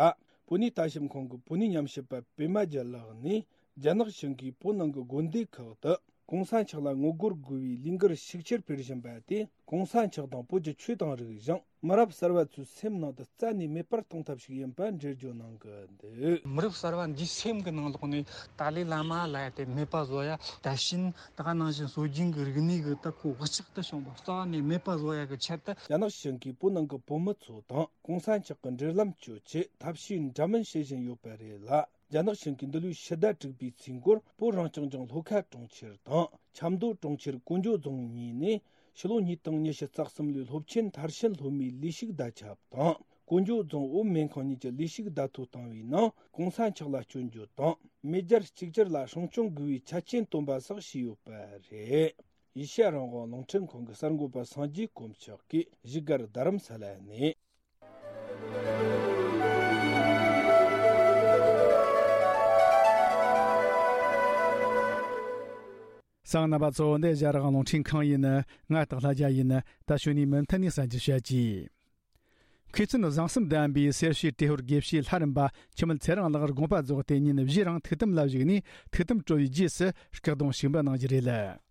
བོད་གནས་ལྟ་ཞིབ་ཁང་གི་བོད་གནས་ཉམས་ཞིབ་པ་པད་མ་རྒྱལ་ལགས་ནས། རྒྱ་ནག་གཞུང་གིས་བོད་ནང་གི་དགོན་སྡེ་ཁག་ཏུ་གོང་ས་མཆོག་ལ་ངོ་རྒོལ་དགོས་པའི་ལས་འགུལ་ཤུགས་ཆེར་སྤེལ་བཞིན་པ་དེ། གོང་ས་མཆོག་དང་བོད་ཀྱི་ཆོས་དང་རིག་གཞུང་མི་རབས་གསར་བ་ཚོའི་སེམས་ནང་དུ་རྩ་ནས་མེད་པར་གཏོང་ཐབས་ཤིག་ཡིན་པ་འགྲེལ་བརྗོད་གནང་གི་འདུག་མི་རབས་གསར་བ་འདིའི་སེམས་ཀྱི་ནང་ལོགས་ནས་ཏཱ་ལའི་བླ་མ་ལབ་ཡ་དེ་མེད་པ་བཟོ་ཡ། ད་ཕྱིན་ད་ག་ནང་བཞིན་སྲོལ་རྒྱུན་གྱི་རིག་གནས་ཀྱི་ད་ཁོ་བག་ཆགས་དུ་བྱུང་བ་རྩ་བ་ནས་མེད་པ་བཟོ་ཡ་གི་ཆེད་དུ། རྒྱ་ནག་གཞུང་གིས་བོད་ནང་གི་བོད་མི་ཚོ་དང་གོང་ས་མཆོག་གི་འབྲེལ་ལམ་གཅོད་ཆེད་ཐབས་ཤེས་འདྲ་མིན་བྱེད་བཞིན་ཡོད་པ་རེད་ལ། རྒྱ་ནག་གཞུང་གིས་འདི་ལོའི་ཕྱི་ཟླ་དྲུག་པའི་ཚེས་མགོར་བོད་རང་སྐྱོང་ལྗོངས་ལྷོ་ཁ་གྲོང་ཁྱེར་དང་ཆབ་མདོ་གྲོང་ཁྱེར་ཀོང་ཇོ་རྫོང་གཉིས་ནས་ཕྱི་ལོ་ཉིས་སྟོང་ཉི་ཤུ་རྩ་གསུམ་ལོའི་སློབ་ཆེན་མཐར་ཕྱིན་སློབ་མའི་ལས་ཞུགས་བརྡ་ཁྱབ་དང་། ཀོང་ཇོ་རྫོང་བོད་སྨན་ཁང་གཉིས་ཀྱི་ལས་ཞུགས་བརྡ་ཐོ་བཏང་བའི་ནང་གོང་ས་མཆོག་ལ་སྐྱོན་བརྗོད་དང་མེས་རྒྱལ་གཅིག་གྱུར་ལ་སྲུང་སྐྱོང་དགོས་པའི་ཆ་རྐྱེན་བཏོན་པ་སོགས་བྱས་ཡོད་པ་རེད། ཨེ་ཤ་ཡ་རང་དབང་རླུང་འཕྲིན་ཁང་གི་གསར་འགོད་པ་སངས་རྒྱས་དཀོན་མཆོག་གིས་བཞུགས་སྒར་རྡ་རམ་ས་ལ་ནས། གསན་མཁན་རྣམ་པ་ཚོ། འདི་རྒྱ་རིགས་རླུང་འཕྲིན་ཁང་ཡིན། ང་སྟག་ལྷ་རྒྱལ་ཡིན། ད་གཞུག་ནས་མུ་མཐུད་ནས་གསན་རྒྱུ་བྱ་གྱིས། མཁས་བཙུན་བཟང་གསུམ་ལྡན་པའི་སེར་བྱེས་ཏྲེ་ཧོར་དགེ་བཤེས་ལྷ་རམས་པ་འཆི་མེད་ཚེ་རིང་ལགས་དགོངས་པ་རྫོགས་ཏེ་ཉིན་བཞིའི་རིང་ཐུགས་དམ་ལ་བཞུགས་ནས་ཐུགས་དམ་གྲོལ་བའི་རྗེས་སུ་སྐུ་གདུང་ཞིག་འབུལ་གནང་རྒྱུ་རེད།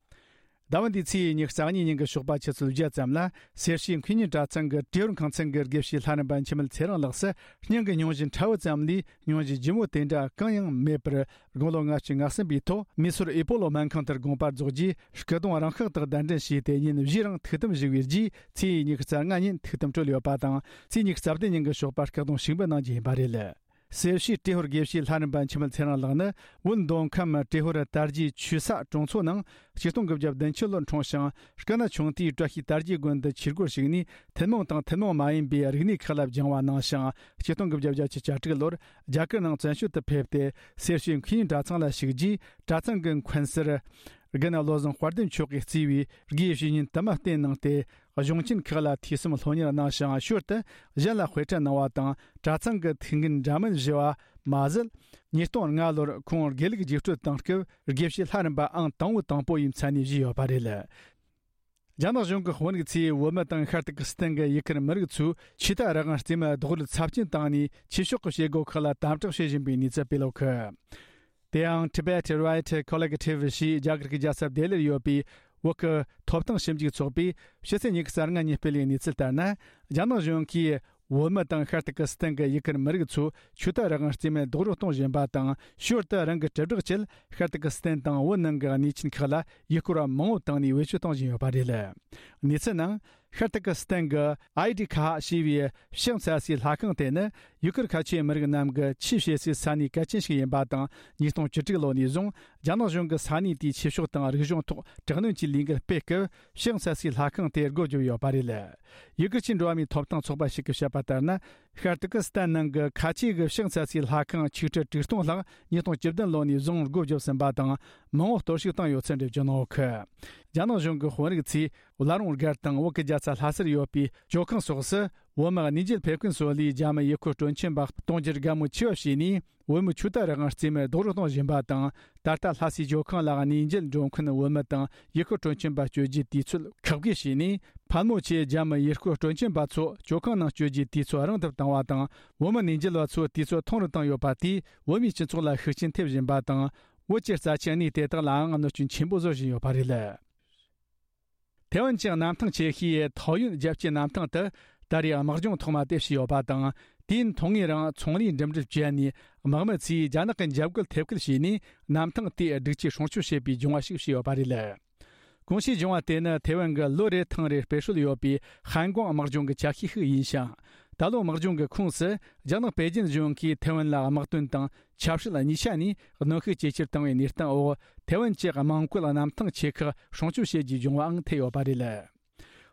ཟླ་བ་འདིའི་ཚེས་ཉི་ཤུ་རྩ་གཉིས་ཉིན་གྱི་ཞོགས་པ་ཆུ་ཚོད་བརྒྱད་ཙམ་ལ་སེར་བྱེས་མཁས་སྙན་གྲྭ་ཚང་གི་ཏྲེ་ཧོར་ཁང་ཚན་གྱི་དགེ་བཤེས་ལྷ་རམས་པ་འཆི་མེད་ཚེ་རིང་ལགས་སུ་སྙིང་གི་སྙུང་གཞི་ཕྲ་བོ་ཙམ་ལས་སྙུང་གཞི་ལྗིད་མོ་དེ་འདྲ་གང་ཡང་མེད་པར། དགུང་ལོ་ལྔ་བཅུ་ང་གསུམ་པའི་ཐོག་མེ་སོར་ཨེ་པོ་ལོ་སྨན་ཁང་དུ་དགོངས་པ་རྫོགས་རྗེས་སྐུ་གདུང་རང་ཤག་ཏུ་གདན་འདྲེན་བྱས་ཏེ་ཉིན་བཞིའི་རིང་ཐུགས་དམ་བཞུགས་པའི་རྗེས་ཚེས་ཉི་ཤུ་རྩ་ལྔ་ཉིན་ཐུགས་དམ་གྲོལ་ཡོད་པ་དང་ཚེས་ཉི་ཤུ་རྩ་བདུན་ཉིན་གྱི་ཞོགས་པ་སྐུ་གདུང་ཞིག་འབུལ་གནང་རྒྱུ་ཡིན་པ་རེད། སེར་བྱེས་ཏྲེ་ཧོར་དགེ་བཤེས་ལྷ་རམས་པ་འཆི་མེད་ཚེ་རིང་ལགས་ནི་བོད་མདོ་ཁམས་ཏྲེ་ཧོར་དར་རྒྱས་ཆོས་ས་གྲོང་ཚོ་ནང་ཆིག་སྟོང་དགུ་བརྒྱ་བདུན་ཅུ་ལོར་འཁྲུངས་ཤིང་སྐུ་ན་ཆུང་དུས་བཀྲ་ཤིས་དར་རྒྱས་དགོན་དུ་ཆོས་སྒོར་ཞུགས་ནས་ཐུན་མོང་དང་ཐུན་མོང་མ་ཡིན་པའི་རིག་གནས་ཁག་ལ་སྦྱང་བ་གནང་ཞིང་ཆིག་སྟོང་དགུ་བརྒྱ་བརྒྱད་ཅུ་གྱ་དྲུག་ལོར་རྒྱ་གར་ནང་བཙན་བྱོལ་དུ་ཕེབས་ཏེ་སེར་བྱེས་མཁས་སྙན་གྲྭ་ཚང་ལ་ཞུགས་རྗེས་གྲྭ་ཚང་གི་མཁན་ཟུར་དགེ་བསྙེན་བློ་བཟང་དཔལ་ལྡན་མཆོག་གིས་གཙོས་པའི་དགེ་བའི་བཤེས་གཉེན་དུ་མ་བསྟེན་གནང་སྟེ། གཞུང་ཆེན་ཁག་ལ་ཐོས་བསམ་སློབ་གཉེར་གནང་ཞིང་ཞོར་དུ་གཞན་ལ་དཔེ་ཁྲིད་གནང་བ་དང་གྲྭ་ཚང་གི་ཐུགས་འགན་འདྲ་མིན་བཞེས་པ་མ་ཟད། ཉིས་སྟོང་ལྔ་ལོར་ཁོང་དགེ་ལུགས་རྒྱུགས་སྤྲོད་གཏོང་སྐབས་དགེ་བཤེས་ལྷ་རམས་པ་ཨང་དང་པོ་དང་པོ་ཡི་མཚན་གནས་བཞེས་ཡོད་པ་རེད། རྒྱ་ནག་གཞུང་གི་དཔོན་རིགས་ཚོས་བོད་མི་དང་ཤར་ཏུར་ཀི་སི་ཐན་གྱི་ཡུ་གུར་མི་རིགས་ཚོས་ཆོས་དད་རང་དབང་རྩིས་མེད་རྡོག་རོལ་ཚབས་ཆེན་བཏང་ནས་ཆོས་ཕྱོགས་ཀྱི་བྱེད་སྒོ་ཁག་ལ་དམ་དྲག་བྱེད་བཞིན་པའི་གནས་ཚུལ་སྤེལ་ཡོད་གི། དེའང་Tibet Right Collective ཞེས་རྒྱ་གར་གྱི་རྒྱལ་ས་ལྡི་ལིར་ཡོད་པའི་བོད་ཀྱི་ཐོབ་ཐང་ཞིབ་འཇུག་ཚོགས་པས་ཕྱི་ཚེས་ཉི་ཤུ་རྩ་ལྔ་ཉིན་སྤེལ་བའི་གནས་ཚུལ་ལྟར་ན། རྒྱ་ནག་གཞུང་གིས་བོད་མི་དང་ཤར་ཏུར་ཀི་སི་ཐན་གྱི་ཡུ་གུར་མི་རིགས་ཚོས་ཆོས་དད་རང་དབང་རྩིས་མེད་རྡོག་རོལ་གཏོང་བཞིན་པ་དང་ཞོར་དུ་རང་གི་དྲིལ་བསྒྲགས་ཆེད་ཤར་ཏུར་ཀི་སི་ཐན་དང་བོད་ནང་གི་གནས་ཆེན་ཁག་ལ་ཡུལ་སྐོར་བ་མང་བོ་བཏང་ནས་བེད་སྤྱོད་གཏོང་བཞིན་ཡོད་པ་རེད། གནས་ཚུལ་ནང་། ཤར་ཏུར་ཀི་སི་ཐན་གྱི་ཨའི་ཌི་ཁ་ཧ་ཞེས་པའི་ཕྱག་འཚལ་སའི་ལྷ་ཁང་དེ་ནི་ཡུ་གུར་ཁ་ཆེའི་མི་རིགས་རྣམས་ཀྱི་ཆོས་བྱེད་སའི་ས་གནས་གལ་ཆེན་ཞིག་ཡིན་པ་དང་། ཉིས་སྟོང་བཅུ་དྲུག་ལོ་ནས་བཟུང་རྒྱ་ནག་གཞུང་གིས་ས་གནས་དེའི་ཆོས་ཕྱོགས་དང་རིག་གཞུང་ཐོག་དྲག་གནོན་གྱི་ལས་འགུལ་སྤེལ་སྐབས་ཕྱག་འཚལ་སའི་ལྷ་ཁང་དེ་སྒོ་བརྒྱབ་ཡོད་པ་རེད། ཡུ་གུར་གྱི་འགྲོ་བ་མིའི་ཐོབ་ཐང་ཚོགས་པ་ཞིག་གིས་བཤད་པ་ལྟར་ན། ཤར་ཏུར་ཀི་སི་ཐན་ནང་གི་ཁ་ཆེ་གི་ཕྱག་འཚལ་སའི་ལྷ་ཁང་ཆིག་ཁྲི་དྲུག་སྟོང་ལྷག་ཉིས་སྟོང་བཅུ་བདུན་ལོ་ནས་བཟུང་སྒོ་བརྒྱབ་ཟིན་པ་དང་མང་བོ་གཏོར་བཤིག་བཏང་ཡོད་ཚུལ་འགྲེལ་བརྗོད་གནང་ཡོད་གི། རྒྱ་ནག་གཞུང་གི་དཔོན་རིགས་ཚོས་བླ་རུང་སྒར་དང་བོད་ཀྱི་རྒྱལ་ས་ལྷ་སར་ཡོད་པའི་ཇོ་ཁང་སོགས་སུ་བོད་མི་གནས་མཇལ་ཕེབས་མཁན་ཚོ་ལས་རྒྱ་མི་ཡུལ་སྐོར་སྤྲོ་འཆམ་པ་གཏོང་རྒྱུར་དགའ་མོས་ཆེ་བ་བྱས་ནས་བོད་མིའི་ཆོས་དད་རང་དབང་རྩིས་མེད་རྡོག་རོལ་གཏོང་བཞིན་པ་དང་། ད་ལྟ་ལྷ་སའི་ཇོ་ཁང་ལ་གནས་མཇལ་འགྲོ་མཁན་བོད་མི་དང་ཡུལ་སྐོར་སྤྲོ་འཆམ་པ་བསྐྱོད་རྒྱུའི་དུས་ཚོད་ཁག་དགོས་བྱས་ནས། ཕལ་མོ་ཆེ་རྒྱ་མི་ཡུལ་སྐོར་སྤྲོ་འཆམ་པ་ཚོ་ཇོ་ཁང་ནང་བསྐྱོད་རྒྱུའི་དུས་ཚོད་རིང་དུ་བཏང་བ་དང་། བོད་མི་གནས་མཇལ་བ་ཚོའི་དུས་ཚོད་ཐུང་རུ་བཏང་ཡོད་པ་དེས་བོད་མིའི་སྤྱི་ཚོགས་ལ་ཤུགས་རྐྱེན་ཐེབས་བཞིན་པ་དང་། བོད་ཀྱི་རྩ་ཆེའི་གནས་དེ་དག་ལའང་གནོད་སྐྱོན་ཆེན་པོ་བཟོ་བཞིན་ཡོད་པ་རེད། ཐེ་ཝན་གྱི་གནམ་ཐང་ཆེ་ཤོས་ཐའོ་ཡོན་རྒྱལ་སྤྱིའི་གནམ་ཐང་དུ་ད་རེས་དམག་སྦྱོང་ཐོག་མ་དེ་བྱས་ཡོད་པ་དང་། དུས་ཡུན་ཐུང་ངུའི་རིང་ཚོང་ལས་འགྲིམ་འགྲུལ་བྱས་ནས་དམག་མི་ཚོས་རྒྱ་ནག་གི་འཇབ་རྒོལ་ཐེབས་སྐུལ་བྱས་ནས་གནམ་ཐང་དེ་སྒྲིག་ཆས་སྲུང་སྐྱོབ་བྱེད་པའི་སྦྱོང་བ་ཞིག་བྱས་ཡོད་པ་རེད། གོང་ཞུས་སྦྱོང་བ་དེ་ནི་ཐེ་ཝན་གྱི་ལོ་རེ་ཐེངས་རེ་སྤེལ་སྲོལ་ཡོད་པའི་ཧན་ཀོང་དམག་སྦྱོང་གི་ཆ་ཤས་ཤིག་ཡིན་ཞིང་། ད་ལོ་དམག་སྦྱོང་གི་ཁོངས་སུ་རྒྱ་ནག་པེ་ཅིན་གཞུང་གིས་ཐེ་ཝན་ལ་དམག་དོན་དང་ཆབ་སྲིད་གཉིས་ཆ་ནས་གནོན་ཤུགས་ཇེ་ཆེར་བཏང་བའི་གནས་སྟངས་འོག་ཐེ་ཝན་གྱི་དམངས་བཀོད་གནམ་ཐང་ཆེ་ཁག་སྲུང་སྐྱོབ་བྱེད་རྒྱུའི་སྦྱོང་བའང་ཐེ་ཡོད་པ་རེད།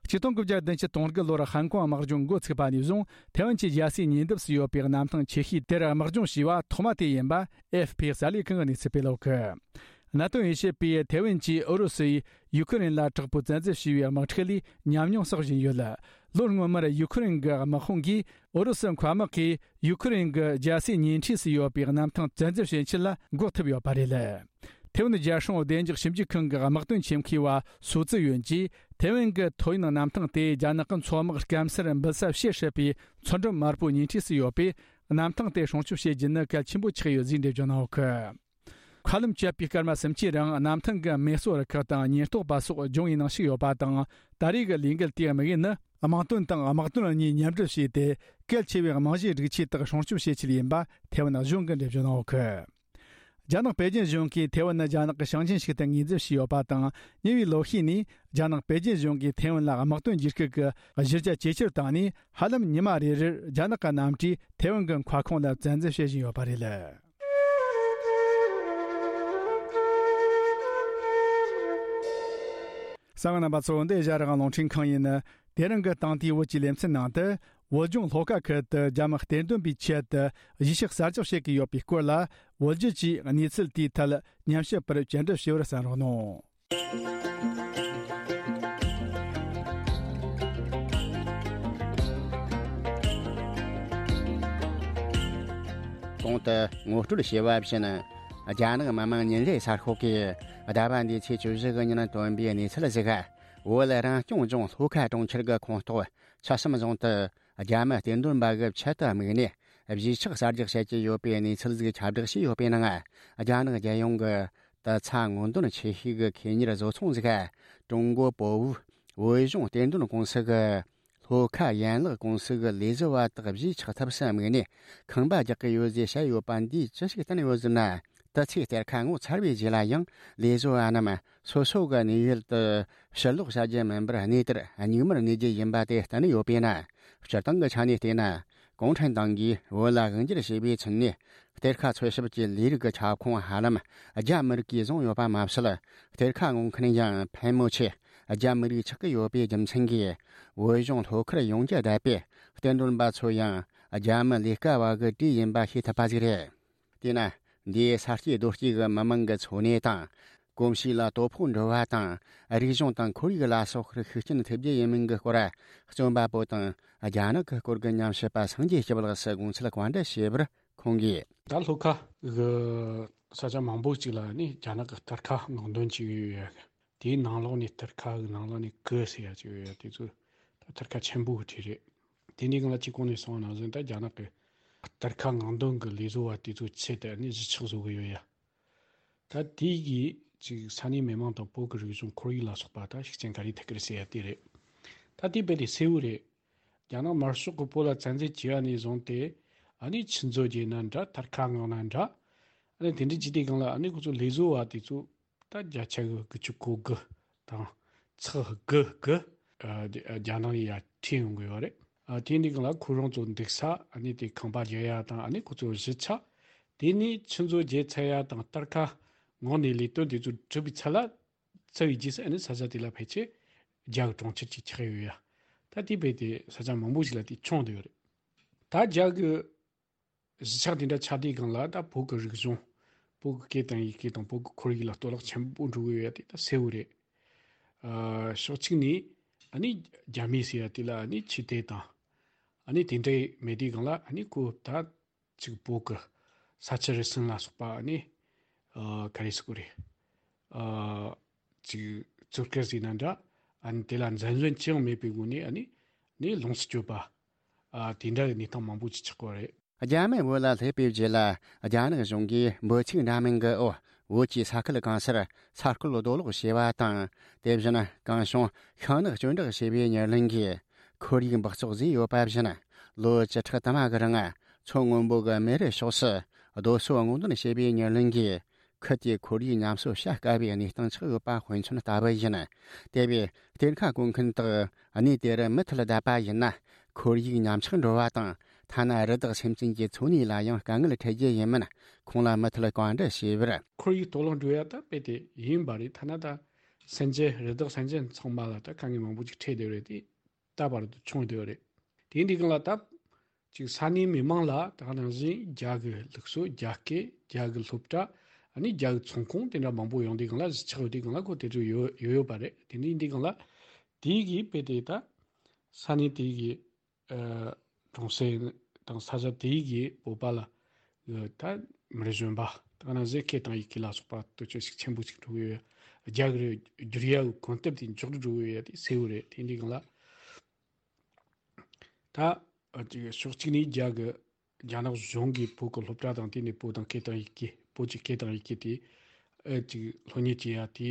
ཆིག་སྟོང་དགུ་བརྒྱ་བདུན་ཅུ་དོན་དགུ་ལོར་ཧན་ཀོང་དམག་སྦྱོང་འགོ་ཚུགས་པ་ནས་བཟུང་ཐེ་ཝན་གྱི་རྒྱལ་སའི་ཉེ་འདབས་སུ་ཡོད་པའི་གནམ་ཐང་ཆེ་ཤོས་དེར་དམག་སྦྱོང་བྱས་པ་ཐོག་མ་དེ་ཡིན་པ་ཨེ་ཧྥི་པི་གསར་ལས་ཁང་གིས་གནས་ཚུལ་སྤེལ་ཡོད་གི། གནད་དོན་དབྱེ་ཞིབ་པས་ཐེ་ཝན་གྱིས་ཨུ་རུ་སུས་ཡུ་ཁུ་རེན་ལ་དྲག་པོའི་བཙན་འཛུལ་བྱས་པའི་དམག་འཁྲུག་ལས་ཉམས་མྱོང་བསགས་བཞིན་ཡོད། ལོ་སྔོན་མར་ཡུ་ཁུ་རེན་གྱི་དམག་དཔུང་གིས་ཨུ་རུ་སུ་མཁའ་དམག་གིས་ཡུ་ཁུ་རེན་གྱི་རྒྱལ་སའི་ཉེ་འཁྲིས་སུ་ཡོད་པའི་གནམ་ཐང་བཙན་འཛུལ་བྱེད་ཆེད་ལ་འགོག་ཐུབ་ཡོད་པ་རེད། ཐེ་ཝན་རྒྱལ་སྲུང་བདེ་འཇགས་ཞིབ་འཇུག་ཁང་གི་དམག་དོན་ཆེད་མཁས་པ་སུ་ཙི་ཡོན་གྱིས། ཐེ་ཝན་གྱི་ཐོ་ཡོན་གནམ་ཐང་དེ་རྒྱ་ནག་གི་མཚོ་དམག་སྐམ་སར་འབུད་ས་བྱེད་སྲིད་པའི་མཚོ་འགྲམ་དམར་པོའི་ཉེ་འཁྲིས་སུ་ཡོད་པས། གནམ་ཐང་དེ་སྲུང་སྐྱོབ་བྱེད་རྒྱུ་ནི་གལ་ཆེན་པོ་ཆགས་ཡོད་ཅེས་འགྲེལ་བརྗོད་གནང་ཡོད་ཀི། མཁའ་ལམ་བཅད་པའི་སྐར་མ་སུམ་ཅུའི་རིང་གནམ་ཐང་གི་མེ་གསོད་རུ་ཁག་དང་ཉེན་རྟོག་པ་སོགས་སྦྱོང་བའི་ནང་ཞུགས་ཡོད་པ་དང་། ད་རེས་ཀྱི་ལས་འགུལ་དེའི་དམིགས་ཡུལ་ནི་དམག་དོན་དང་དམག་དོན་གཉིས་མཉམ་འབྲེལ་བྱས་ཏེ། གལ་ཆེ་བའི་རྨང་གཞིའི་སྒྲིག་ཆས་དག་སྲུང་སྐྱོབ་བྱེད་ཆེད་ཡིན་པ་ཐེ་ཝན་གཞུང་གིས་འགྲེལ་བརྗོད་གནང་ཡོད་ཀི། རྒྱ་ནག་པེ་ཅིན་གཞུང་གིས་ཐེ་ཝན་ནི་རྒྱ་ནག་གི་ཞིང་ཆེན་ཞིག་ཏུ་ངོས་འཛིན་བྱས་ཡོད་པ་དང་། ཉེ་བའི་ལོ་ཤས་ནས་རྒྱ་ནག་པེ་ཅིན་གཞུང་གིས་ཐེ་ཝན་ལ་དམག་དོན་བྱེད་སྐབས་ཀྱི་གཞི་རྒྱ་ཇེ་ཆེར་བཏང་ནས། ཧ་ལམ་ཉི་མ་རེ་རེར་རྒྱ་ནག་གི་གནམ་གྲུས་ཐེ་ཝན་གྱི་མཁའ་ཁོངས་ལ་བཙན་འཛུལ་བྱེད་བཞིན་ཡོད་པ་རེད། གསན་མཁན་རྣམ་པ་ཚོ། འདི་ཨེ་ཤ་ཡ་རང་དབང་རླུང་འཕྲིན་ཁང་ཡིན། དེ་རིང་གི་དེང་དུས་བོད་ཀྱི་ལེ་ཚན་ནང་དུ། བོད་ལྗོངས་ལྷོ་ཁ་ཁུལ་དུ་རྒྱ་མི་གཏེར་འདོན་པའི་ཆེད་དུ་གཞིས་ཆགས་གསར་རྒྱག་བྱེད་ཀྱི་ཡོད་པའི་སྐོར་ལ། བོད་བརྒྱུད་ཀྱིས་གནས་ཚུལ་དེའི་ཐད་ཉམས་ཞིབ་པར་བཅར་འདྲི་ཞུ་བར་གསན་རོགས་གནང་། གོང་དུ་ངོ་སྤྲོད་བྱས་པ་བཞིན། རྒྱ་ནག་མི་དམངས་ཉིན་རེའི་གསར་ཤོག་གིས་ཟླ་བ་འདིའི་ཚེས་བཅུ་བཞི་གི་ཉིན་བཏོན་པའི་གནས་ཚུལ་ཞིག་བོད་རང་སྐྱོང་ལྗོངས་ལྷོ་ཁ་གྲོང་ཁྱེར་གྱི་ཁོངས་གཏོགས་ཆུ་བྱམས་རྫོང་དུ་རྒྱ་མི་གཏེར་འདོན་པ་གི་ཆེད་དུ་དམིགས་ནས་གཞིས་ཆགས་གསར་རྒྱག་བྱེད་ཀྱི་ཡོད་པའི་གནས་ཚུལ་ཞིག་ཁྱབ་བསྒྲགས་བྱས་ཡོད་པའི་ནང་། རྒྱ་ནག་རྒྱལ་ཡོངས་ཀྱི་ཏི་ཚ་དངུལ་འདོན་ཆེ་ཤོས་ཀྱི་ཁེ་གཉེར་བཟོ་ཚོང་ཞིག་ཀྲུང་གོ་པོ་ཝུའུ་བོད་གཞུང་གཏེར་འདོན་ཀུང་སི་གི་ལྷོ་ཁ་ཡན་ལག་ཀུང་སི་གི་ལས་བཟོ་བ་དག་གཞིས་ཆགས་ཐབས་སུ་དམིགས་ནས་ཁང་པ་རྒྱག་གི་ཡོད་ཅེས་བཤད་ཡོད་པ་འདིས་ཅི་ཞིག་བསྟན་ཡོད་ཟེར་ན། དུས་ཚོད་གཏེར་ཁ་ངོ་མཚར་བའི་རྗེས་ལ་ཡང་ལས་བཟོ་བ་རྣམས་སོ་སོ་གི་གནས་ཡུལ་དུ་ཕྱིར་ལོག་བྱ་རྒྱུ་མིན་པར་གནས་དེར་མྱུལ་མར་གནས་རྒྱུ་ཡིན་པ་དེ་བསྟན་ཡོད་པས་ན། སྤྱིར་བཏང་གི་ཆ་ནས་བལྟས་ན། གུང་ཁྲན་ཏང་གིས་བོད་ལ་དབང་སྒྱུར་བྱས་པའི་ཚུན་ནས་གཏེར་ཁ་འཚོལ་ཞིབ་ཀྱི་ལས་རིགས་ཀྱི་ཁྱབ་ཁོངས་ཧ་ལམ་རྒྱ་མི་རིགས་ཀྱིས་བཟུང་ཡོད་པ་མ་ཟད། གཏེར་ཁ་སྔོག་མཁན་ཡང་ཕལ་མོ་ཆེ་རྒྱ་མི་རིགས་ཆགས་ཀྱི་ཡོད་པའི་རྒྱུ་མཚན་གྱིས། བོད་གཞུང་ལྷོ་ཁར་ཡོང་རྒྱུ་བསྡད་པའི་གཏེར་འདོན་པ་ཚོ་ཡང་རྒྱ་མི་ལས་ཀ་བ་གི་གྲས་ཡིན་པ་ཤེས་ཐུབ་པ་ཞིག་རེད། དེས་ན། འདིའི་ས་སྐྱེས་རྡོ་སྐྱེས་ཀྱི་མི་མང་གི་འཚོ་གནས་དང་། གོམས་གཤིས་ལ་དོ་ཕོག་འགྲོ་བ་དང་། རིག་གཞུང་དང་ཁོར་ཡུག་ལ་སོགས་པར་ཤུགས་རྐྱེན་ཐེབས་རྒྱུ་ཡིན་མིན་གྱི་སྐོར། རྩོམ་པ་པོ་དང་རྒྱ་ནག་གི་སྐོར་གྱི་ཉམས་ཞིབ་པ་སངས་རྒྱས་སྐྱབས་ལགས་སུ་དགོངས་ཚུལ་བཀའ་འདྲི་ཞུས་པར་ཁོང་གིས། ད་ལྷོ་ཁ་གི་ས་ཆ་མང་པོ་ཅིག་ལ་ནི་རྒྱ་ནག་གི་གཏེར་ཁ་སྔོག་འདོན་བྱེད་ཀྱི་ཡོད་ཡ། དེའི་ནང་ལོགས་ནས་གཏེར་ཁ་གི་ནང་ལོགས་ནས་གི་ཟེར་ཡ་ཅིག་ཡོད་ཡ། དེ་ཚོ་ད་གཏེར་ཁ་ཆེན་པོ་གི་གྲས་རེད། དེ་ནས་གང་ལ་ཅིག་གོང་ནས་གསུངས་པ་ནང་བཞིན། ད་རྒྱ་ནག་གི་གཏེར་ཁ་སྔོག་འདོན་གི་ལས་བཟོ་བ་དེ་ཚོའི་ཆེད་དུ་ནི་གཞིས་ཆགས་བཟོ་གི་ཡོད་ཡ། ད་དེ་གིས་ཅིག་ས་གནས་མི་མང་དང་བོད་ཀྱི་རིག་གཞུང་ཁོར་ཡུག་ལ་སོགས་པ་ད་ཤུགས་རྐྱེན་ག་རེ་ཐེབས་ཀྱི་རེད་ཟེར་ཡ་དེ་རེད། ད་དེ་རྦད་དེ་གསལ་བོ་རེད། རྒྱ་ནག་དམར་ཤོག་གིས་བོད་ལ་བཙན་འཛུལ་བྱས་པ་ནས་བཟུང་སྟེ། ཨ་ནི་ཆུ་མཛོད་བརྒྱུད་ན་འདྲ། གཏེར་ཁ་སྔོག་ན་འདྲ། ཨ་ནི་དེ་འདྲ་བྱས་དུས་སྒང་ལ་ཨ་ནི་ཁོ་ཚོ་ལས་བཟོ་བ་དེ་ཚོ་ད་བརྒྱ་ཆ་གི་དགུ་བཅུ་གོ་དགུ་དང་ཚེག་དགུ་གི་ཨ་རྒྱ་ནག་ཡ་ཁྲིད་ཡོང་གི་ཡོད་རེད། ཨ་དེ་འདྲའི་སྒང་ལ་ཁོ་རང་ཚོ་འདུག་ས། ཨ་ནི་དེ་ཁང་པ་རྒྱག་ཡ་དང་། ཨ་ནི་ཁོ་ཚོ་གཞིས་ཆགས། དེ་ནས་ཆུ་མཛོད་བརྒྱུད་ཚར་ཡ་དང་གཏེར་ཁ་སྔོག་ནས་ལས་དོན་དེ་ཚོ་གྲུབ་པའི་ཚད་ལ། ཚར་བའི་རྗེས་སུ་ཨ་ནི་ས་ཆ་དེ་ལ་ཕལ་ཆེར་རྒྱ་གི་གྲོང་ཁྱེར་ཅིག་ཆགས་ཡོད་ཡ། ད་དེ་རྦད་དེ་ས་ཆ་མང་པོ་ཞིག་ལ་དེ་བྱུང་བསྡད་ཡོད་རེད། ད་རྒྱ་གི་གཞིས་ཆགས་དེ་འདྲ་ཆགས་དུས་སྒང་ལ། ད་བོད་ཀྱི་རིག་གཞུང་། བོད་ཀྱི་སྐད་དང་ཡི་གེ་དང་བོད་ཀྱི་ཁོར་ཡུག་ལ་གཏོར་བརླག་ཆེན་པོ་འགྲོ་གི་ཡོད་ཡ་དེ་ད་གསལ་བོ་རེད། ཨ་ཕྱོགས་གཅིག་ནས་ཨ་ནི་རྒྱ་མི་ཟེར་ཡ་དེ་ལ་ཨ་ནི་ཆོས་དད་དང་། ཨ་ནི་དེ་འདྲ་མེད་དུས་སྒང་ལ་ཨ་ནི་ཁོ་ད་ཅིག་བོད་ཀྱི་ས་ཆུ་རུ་སུན་ལ་སོགས་པ་ཨ་ནི་ཨ་ག་རེ་ཟེར་དགོས་རེད། ཨ་ཅིག་བཙོན་ཁང་ཟེར་ན་འདྲ། ཨ་ནི་དེ་ལ་འཛིན་བཟུང་ཅི་ཡང་མེད་པའི་སྒོ་ནས་ཨ་ནི་ནི་ལོངས་སུ་སྤྱོད་པ། ཨ་དེ་འདྲ་གི་གནས་སྟངས་མང་པོ་ཅིག་ཆགས་ཀྱི་ཡོད་རེད། རྒྱ་མི་བོད་ལ་སླེབས་པའི་རྗེས་ལ། རྒྱ་ནག་གཞུང་གིས་འབོད་ཚིག་འདྲ་མིན་གྱི་འོག་བོད་ཀྱི་ས་ཁུལ་གང་སར་ས་རྐོ་རྡོ་སློག་བྱས་པ་དང་། དེ་བཞིན་གང་བྱུང་ཤིང་ནགས་གཅོད་འབྲེག་བྱས་པའི་ཉེར་ལེན་གྱིས་ཁོར་ཡུག་འབག་བཙོག་བཟོས་ཡོད་པ་བཞིན། ལོ་བཅུ་ཕྲག་དུ་མ་གི་རིང་མཚོ་སྔོན་པོ་གི་མེ་རི་ཕྱོགས་སུ་རྡོ་སོལ་སྔོག་འདོན་བྱས་པའི་ཉེར་ལེན་གྱིས། ཁུལ་དེའི་ཁོར་ཡུག་ཉམས་གསོ་བྱ་དཀའ་བའི་གནས་སྟངས་ཆགས་ཡོད་པ་དཔེ་མཚོན་ལྟ་བུ་ཡིན། དེ་བས་གཏེར་ཁ་བརྐོ་མཁན་དག་གནས་དེ་རུ་མུ་མཐུད་བསྡད་པ་ཡིན་ན། ཁོར་ཡུག་ཉམས་ཆག་འགྲོ་བ་དང་། ཐ་ན་རི་དྭགས་སེམས་ཅན་གྱི་འཚོ་གནས་ལ་ཡང་དཀའ་ངལ་འཕྲད་རྒྱུ་ཡིན་མིན་ཁོང་ལ་མུ་མཐུད་བཀའ་འདྲི་བྱས་པར། ཁོར་ཡུག་གཏོར་བརླག་འགྲོ་ཡ་ད་རྦད་དེ་ཡིན་པ་རེད། ཐ་ན་ད་སེམས་ཅན་རི་དྭགས་སེམས་ཅན་ཚང་མ་ལ་ད་དཀའ་ངལ་མང་པོ་ཅིག་འཕྲད་བསྡད་རེད་དེ། ད་བར་དུ་བྱུང་བསྡད་ཡོད་རེད། དེ་འདི་སྒང་ལ་ད་ཅིག་ས་གནས་མི་མང་ལ་ད་ག་ནང་བཞིན་རྒྱ་གི་ལུགས་སྲོལ། རྒྱ་སྐད། རྒྱ་གི་སློབ་གྲྭ། ཨ་ནི་རྒྱ་གི་ཚོང་ཁང་དེ་འདྲ་མང་པོ་ཡོང་དུས་སྒང་ལ། གཞིས་ཆགས་ཡོད་དུས་སྒང་ལ་ཁོ་དེ་ཚོ་ཡོད་ཡོད་ཡོད་པ་རེད། དེ་འདི་འདི་སྒང་ལ་དེ་གིས་དཔེ་དེ་ད་ ས་གནས་དེའི་གི་ཨ་གྲོང་གསེབ་དང་ས་ཆ་དེའི་གི་བོད་པ་ལ་ཨ་ད་མི་གཞོན་པ་ད་ག་ནང་བཞིན་སྐད་དང་ཡི་གེ་ལ་སོགས་པ་དུ་ཆོས་ཤིག་ཆེན་པོ་ཅིག་འགྲོ་གི་ཡོད། རྒྱ་གི་རེ་བསྒྱུར་ཡ་གི་གོམ་སྟབས་དེ་མགྱོགས་རུ་འགྲོ་གི་ཡོད་ཡ་དེ་གསལ་བོ་རེད། དེ་འདྲའི་སྒང་ལ་ད་ཨ་ཅིག་ཕྱོགས་གཅིག་ནས་རྒྱ་གི་རྒྱ་ནག་གཞུང་གིས་བོད་ཀྱི་སློབ་གྲྭ་དང་དེ་ནས་བོད་དང་སྐད་དང་ཡི་གེ་བོད་ཀྱི་སྐད་དང་ཡི་གེ་དེ་ཨེ་ཅིག་སློབ་གཉེར་བྱེད་ཡ་དེ་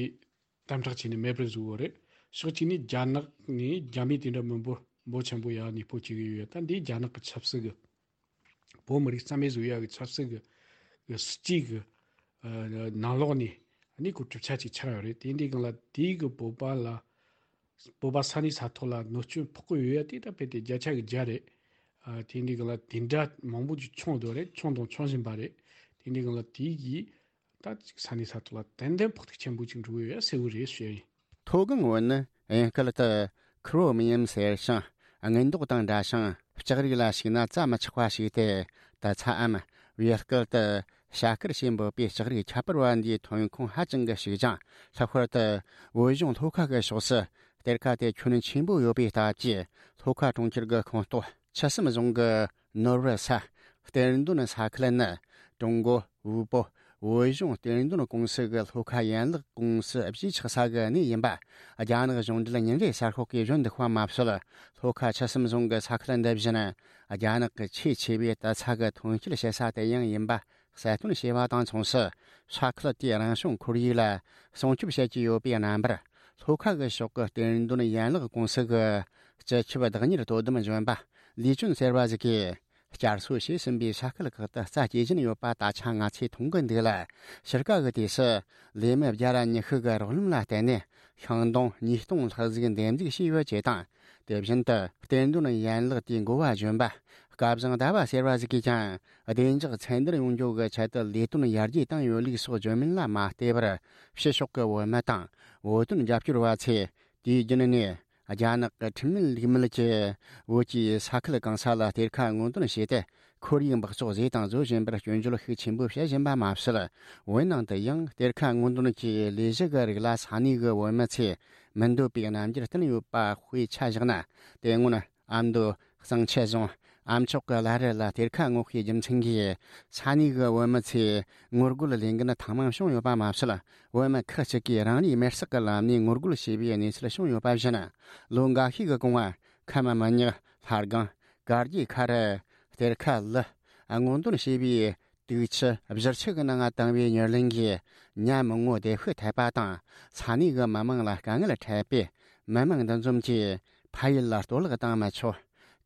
དམ་དྲག་བྱས་ནས་མེད་པར་བཟོས་ཡོད་རེད། ཕྱོགས་གཅིག་ནས་རྒྱ་ནག་ནས་རྒྱ་མི་དེ་འདྲ་མི་འབོར་འབོར་ཆེན་པོ་ཡར་གནས་སྤོ་བྱེད་ཀྱི་ཡོད། ད་འདི་རྒྱ་ནག་གི་ཆབ་སྲིད་ཀྱི་བོད་མི་རིགས་རྩ་མེད་བཟོ་ཡ་གི་ཆབ་སྲིད་ཀྱི་གི་སྲིད་ཇུས་ཀྱི་ཨ་ནང་ལོགས་ནས་ནི་གོ་གྲུབ་ཆ་ཅིག་ཆགས་ཡོད་རེད། དེ་འདི་སྒང་ལ་དེའི་གི་བོད་པ་ལ་བོད་པ་ས་གནས་ས་ཐོག་ལ་གནོད་སྐྱོན་ཕོག་གི་ཡོད་ཡ་དེ་ད་དཔེ་དེ་བརྒྱ་ཆ་གི་བརྒྱ་རེད། ཨ་དེ་འདི་སྒང་ལ་དེ་འདྲ་མང་པོ་ཅིག་བྱུང་འདུག་རེད། བྱུང་དང་འབྱུང་བཞིན་པ་རེད། དེ་འདི་སྒང་ལ་དེའི་གི་ད་ཅིག་ས་གནས་ས་ཐོག་ལ་ཏན་ཏན་ཕོག་ཐུག་ཆེན་པོ་ཅིག་འགྲོ་གི་ཡོད་ཡ་གསལ་བོ་རེད་ཞུ་ཡ་ཡིན། མཐོ་སྒང་བོད་ནི་དབྱིན་སྐད་དུ་Chromium ཟེར་ཞིང་། དངུལ་མདོག་དང་འདྲ་ཞིང་ལྕགས་རིགས་ལ་ཞུགས་ན་བཙའ་མི་ཆོག་པ་ཞིག་སྟེ། ད་ཚའམ་བོད་སྐད་དུ་བྱ་དཀར་ཞེས་འབོད་པའི་ལྕགས་རིགས་ཁྱད་པར་བ་འདིའི་ཐོན་ཁུངས་ཧ་ཅང་གི་ཞིག་ཅིང་། ལྷག་པར་དུ་བོད་གཞུང་ལྷོ་ཁ་གི་ཕྱོགས་སུ་གཏེར་ཁ་དེ་ཁྱོན་ཆེན་པོ་ཡོད་པའི་སྟབས་ཀྱིས། ལྷོ་ཁ་གྲོང་ཁྱེར་གྱི་ཁོངས་གཏོགས་ཆུ་གསུམ་རྫོང་གི་ནོར་བུ་ས་གཏེར་འདོན་ས་ཁུལ་ནི་ཀྲུང་གོ་དབུལ་པོ་བོད་གཞུང་གཏེར་འདོན་ཀུང་སི་གི་ལྷོ་ཁ་ཡན་ལག་ཀུང་སི་གཞིས་ཆགས་ས་གི་གནས་ཡིན་པ། རྒྱ་ནག་གཞུང་འབྲེལ་ཉིན་རེའི་གསར་ཤོག་གིས་བཞོན་འདུག་པ་མ་ཟད། ལྷོ་ཁ་ཆུ་གསུམ་རྫོང་གི་ས་ཁུལ་འདི་བཞིན་རྒྱ་ནག་གི་ཆེས་ཆེ་བའི་དུད་ཚང་གི་ཐོན་སྐྱེད་བྱེད་ས་དེ་ཡང་ཡིན་པ་གསལ་སྟོན་བྱས་པ་དང་མཚུངས་སུ། ས་ཁུལ་དེའི་རང་བྱུང་ཁོར་ཡུག་ལ་སྲུང་སྐྱོབ་བྱེད་ཀྱི་ཡོད་པའི་རྣམ་པར། ལྷོ་ཁ་གི་ཕྱོགས་ཀྱི་གཏེར་འདོན་ཡན་ལག་ཀུང་སི་གི་སྤྱི་ཁྱབ་བདག་གཉེར་དོ་དམ་གཞོན་པ་ལི་ཅུན་ཟེར་བ་ཞིག་གིས། བསྐྱར་གསོ་བྱས་ཟིན་པའི་ས་ཁུལ་ཁག་ཏུ་རྩྭ་སྐྱེ་བཞིན་ཡོད་པ་ད་ཆ་ང་ཚོས་མཐོང་གི་འདུག་ལ། ཕྱི་དཀའ་གི་དུས་སུ་ལས་མི་བརྒྱ་ར་ཉི་ཤུ་གི་རོགས་རམ་ལ་བརྟེན་ནས་ཤིང་སྡོང་ཉིས་སྟོང་ལྷག་ཟིག་འདེབས་འཛུགས་བྱས་ཡོད་ཅེས་དང་། དེ་བཞིན་དུ་གཏེར་འདོན་ཡན་ལག་དེའི་འགོ་བ་གཞོན་པ་སྐལ་བཟང་ཟླ་བ་ཟེར་བ་ཞིག་གིས་ཀྱང་བདེ་འཇགས་ཚད་འདིར་ཡོང་རྒྱུ་གི་ཆེད་དུ་ལས་དོན་ཡར་རྒྱས་བཏང་ཡོད་ལུགས་སོགས་བརྗོད་མིན་ལ་མ་བལྟས་པར། ཕྱི་ཕྱོགས་ཀྱི་བོད་མི་དང་བོད་དོན་རྒྱབ་སྐྱོར་བ་ཚོས་དུས་རྒྱུན་ནས། རྒྱ་ནག་གི་ཁྲིམས་མེད་ལུགས་མེད་ཀྱིས་བོད་ཀྱི་ས་ཁུལ་གང་ས་ལ་གཏེར་ཁ་སྔོག་འདོན་བྱས་ཏེ། ཁོར་ཡུག་འབག་བཙོག་བཟོས་དང་བཟོ་བཞིན་པར་སྐྱོན་བརྗོད་ཤུགས་ཆེན་པོ་བྱེད་བཞིན་པ་མ་ཟད། བོད་ནང་དུ་ཡང་གཏེར་ཁ་སྔོག་འདོན་གྱི་ལས་གཞི་གི་རིགས་ལ་ས་གནས་ཀྱི་བོད་མི་ཚོས་མི་འདོད་པའི་རྣམ་འགྱུར་བསྟན་ཡོད་པ་དཔེ་ཆ་བཞག་ན། དེ་སྔོན་ཨ་མདོ་གཙང་ཆུ་རྫོང་ཨ་མཆོག་གི་བླ་རི་ལ་གཏེར་ཁ་སྔོག་པའི་རྒྱུ་མཚན་གྱིས་ས་གནས་ཀྱི་བོད་མི་ཚོས་ངོ་རྒོལ་ལས་འགུལ་ཐེངས་མང་བྱུང་ཡོད་པ་མ་ཟད། བོད་མི་ཁག་ཅིག་གིས་རང་རེའི་མེར་སྲེག་གི་ལམ་ནས་ངོ་རྒོལ་བྱས་པའི་གནས་ཚུལ་བྱུང་ཡོད་པ་བཞིན། ལོ་འགའ་ཤས་ཀྱི་གོང་ང་ཁམས་མི་ཉག་ལྷ་སྒང་དཀར་རྒྱལ་ཁ་རུ་གཏེར་ཁ་ལི་སྔོག་འདོན་བྱས་པའི་དུག་ཆུ་བཞུར་ཆུ་གི་ནང་བཏང་བའི་མྱུར་ལན་གྱིས་ཉ་མི་ངོ་བདེ་ཤོས་ཐེབས་པ་དང་། ས་གནས་ཀྱི་མི་མང་ལ་དཀའ་ངལ་འཕྲད་པས། མི་མང་འདུ་འཛོམས་ཀྱིས་ཕ་ཡུལ་ལ་གཏོར་བརླག་བཏང་མི་ཆོག་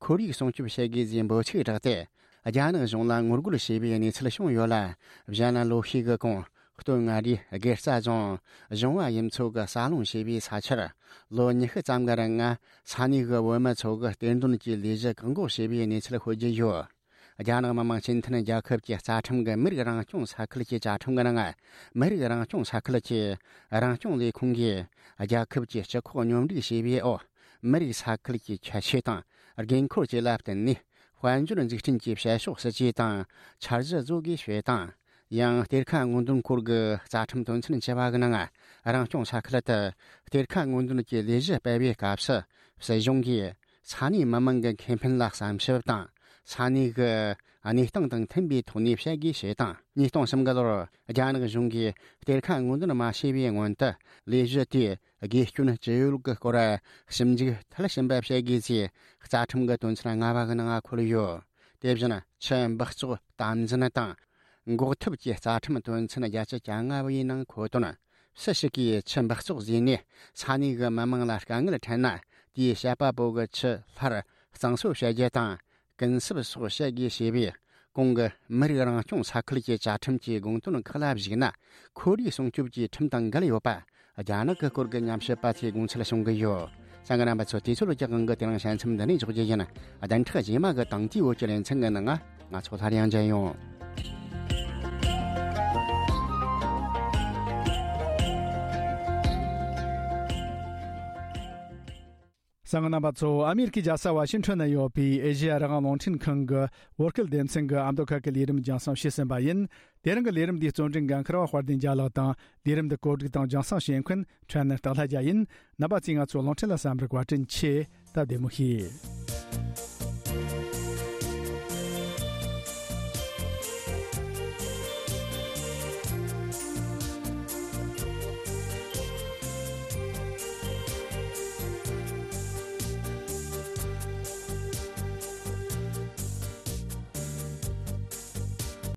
ཁོར་ཡུག་སྲུང་སྐྱོབ་བྱེད་དགོས་ཞེས་འབོད་ཚིག་བསྒྲགས་ཏེ། རྒྱ་ནག་གཞུང་ལ་ངོ་རྒོལ་བྱས་པའི་གནས་ཚུལ་བྱུང་ཡོད་ལ། གཞན་ལ་ལོ་ཤས་ཀྱི་གོང་སྟོད་མངའ་རིས་དགེ་རྩ་རྫོང་གཞུང་བ་ཡུལ་ཚོ་གི་ས་སློང་བྱས་པའི་ས་ཆར་ལོ་ཉི་ཤུ་ཙམ་གྱི་རིང་ང་ས་གནས་ཀྱི་བོད་མི་ཚོ་གིས་གཏེར་འདོན་གྱི་ལས་གཞི་བཀག་འགོག་བྱས་པའི་གནས་ཚུལ་ཤོད་ཀྱི་ཡོད། རྒྱ་ནག་མི་དམངས་སྤྱི་མཐུན་རྒྱལ་ཁབ་ཀྱི་རྩ་ཁྲིམས་ཀྱི་མི་རིགས་རང་སྐྱོང་ས་ཁུལ་གྱི་བཅའ་ཁྲིམས་ཀྱི་ནང་། མི་རིགས་རང་སྐྱོང་ས་ཁུལ་གྱི་རང་སྐྱོང་ལས་ཁུངས་ཀྱིས་རྒྱལ་ཁབ་ཀྱི་སྤྱི་ཁོག་སྙོམས་སྒྲིག་བྱས་པའི་འོག་མི་རིགས་ས་ཁུལ་གྱི་ཁྱད་ཆོས་དང་། དགོས་མཁོར་བཅས་ལ་བརྟེན་ནས། དཔལ་འབྱོར་འཛུགས་སྐྲུན་གྱི་བྱེད་ཕྱོགས་སྲིད་ཇུས་དང་འཆར་གཞི་བཟོ་དགོས་ཞེས་དང་། ཡང་གཏེར་ཁ་སྔོག་འདོན་སྐོར་གྱི་རྩ་ཁྲིམས་དོན་ཚན་བཅུ་པ་གི་ནང་། རང་སྐྱོང་ས་ཁུལ་དུ་གཏེར་ཁ་སྔོག་འདོན་གྱི་ལས་གཞི་སྤེལ་བའི་སྐབས་སུ། སྲིད་གཞུང་གིས་ས་གནས་མི་མང་གི་ཁེ་ཕན་ལ་བསམ་ཞིབ་དང་། ས་གནས་ཀྱི་གནས་སྟངས་དང་མཐུན་པའི་ཐོག་ནས་བྱེད་དགོས་ཞེས་དང་། ཉིས་སྟོང་གསུམ་གི་ལོར་རྒྱ་ནག་གཞུང་གིས་གཏེར་ཁ་སྔོག་འདོན་མ་བྱས་པའི་སྔོན་དུ། ལས་གཞི་དེས་དགོས་སྐྱོན་ཅི་ཡོད་ཀྱི་སྐོར་ཞིབ་འཇུག་མཐིལ་ཕྱིན་པ་བྱེད་དགོས་ཅེས་རྩ་ཁྲིམས་ཀྱི་དོན་ཚན་ལྔ་པ་གི་ནང་འཁོད་ཡོད། དེ་བཞིན་ཆུ་འབག་བཙོག་དམ་འཛིན་དང་། འགོག་ཐབས་ཀྱི་རྩ་ཁྲིམས་དོན་ཚན་བརྒྱད་ཅུ་གྱ་ལྔ་པའི་ནང་འཁོད་དོན། སུ་ཞིག་གིས་ཆུ་འབག་བཙོག་བཟོས་ནས་ས་གནས་ཀྱི་མི་མང་ལ་དཀའ་ངལ་འཕྲད་ན། དེའི་བཤད་པ་པོ་གི་ཆུ་སླར་གཙང་བཟོ་བྱ་རྒྱུ་དང་། ཀུན་གསབ་སོགས་བྱེད་དགོས་ཞེས་པའི་གོང་གི་མི་རིགས་རང་སྐྱོང་ས་ཁུལ་གྱི་བཅའ་ཁྲིམས་ཀྱི་དགོངས་དོན་ཁག་ལ་གཞིགས་ན། ཁོར་ཡུག་སྲུང་སྐྱོབ་ཀྱི་ཁྲིམས་དང་འགལ་ཡོད་པ། རྒྱ་ནག་གི་སྐོར་གྱི་ཉམས་ཞིབ་པ་ཚོས་དགོངས་ཚུལ་གསུང་གི་ཡོད། གསན་མཁན་རྣམ་པ་ཚོ། དུས་ཚོད་ཀྱི་དབང་གིས་དེ་རིང་བཤད་མཚམས་འདི་ནས་འཇོག་རྒྱུ་ཡིན། བདུན་ཕྲག་རྗེས་མ་གི་དང་དེའི་བོད་ཀྱི་ལེ་ཚན་གྱི་ནང་ང་ང་ཚོ་སླར་ཡང་མཇལ་ཡོང་། གསན་མཁན་རྣམ་པ་ཚོ། ཨ་མེ་རི་ཁའི་རྒྱལ་ས་ཝ་ཤིང་ཊོན་ན་ཡོད་པའི་ཨེ་ཤེ་ཡ་རང་དབང་རླུང་འཕྲིན་ཁང་གི་བོད་སྐད་སྡེ་ཚན་གྱི་ཨ་མདོ་ཁ་གི་ལས་རིམ་རྒྱང་སྲིང་བྱས་ཟིན་པ་ཡིན། དེ་རིང་གི་ལས་རིམ་འདིའི་རྩོམ་སྒྲིག་འགན་འཁུར་བ་དཔལ་ལྡན་རྒྱལ་ལགས་དང་། ལས་རིམ་འདི་གོ་སྒྲིག་དང་རྒྱང་སྲིང་བྱེད་མཁན་ཕྲན་ནེར་སྟག་ལྷ་རྒྱལ་ཡིན། རྣམ་པ་ཚོས་ང་ཚོའི་རླུང་འཕྲིན་ལ་གསན་པར་བཀའ་དྲིན་ཆེ། སྟབས་བདེ་མོ་བྱེད།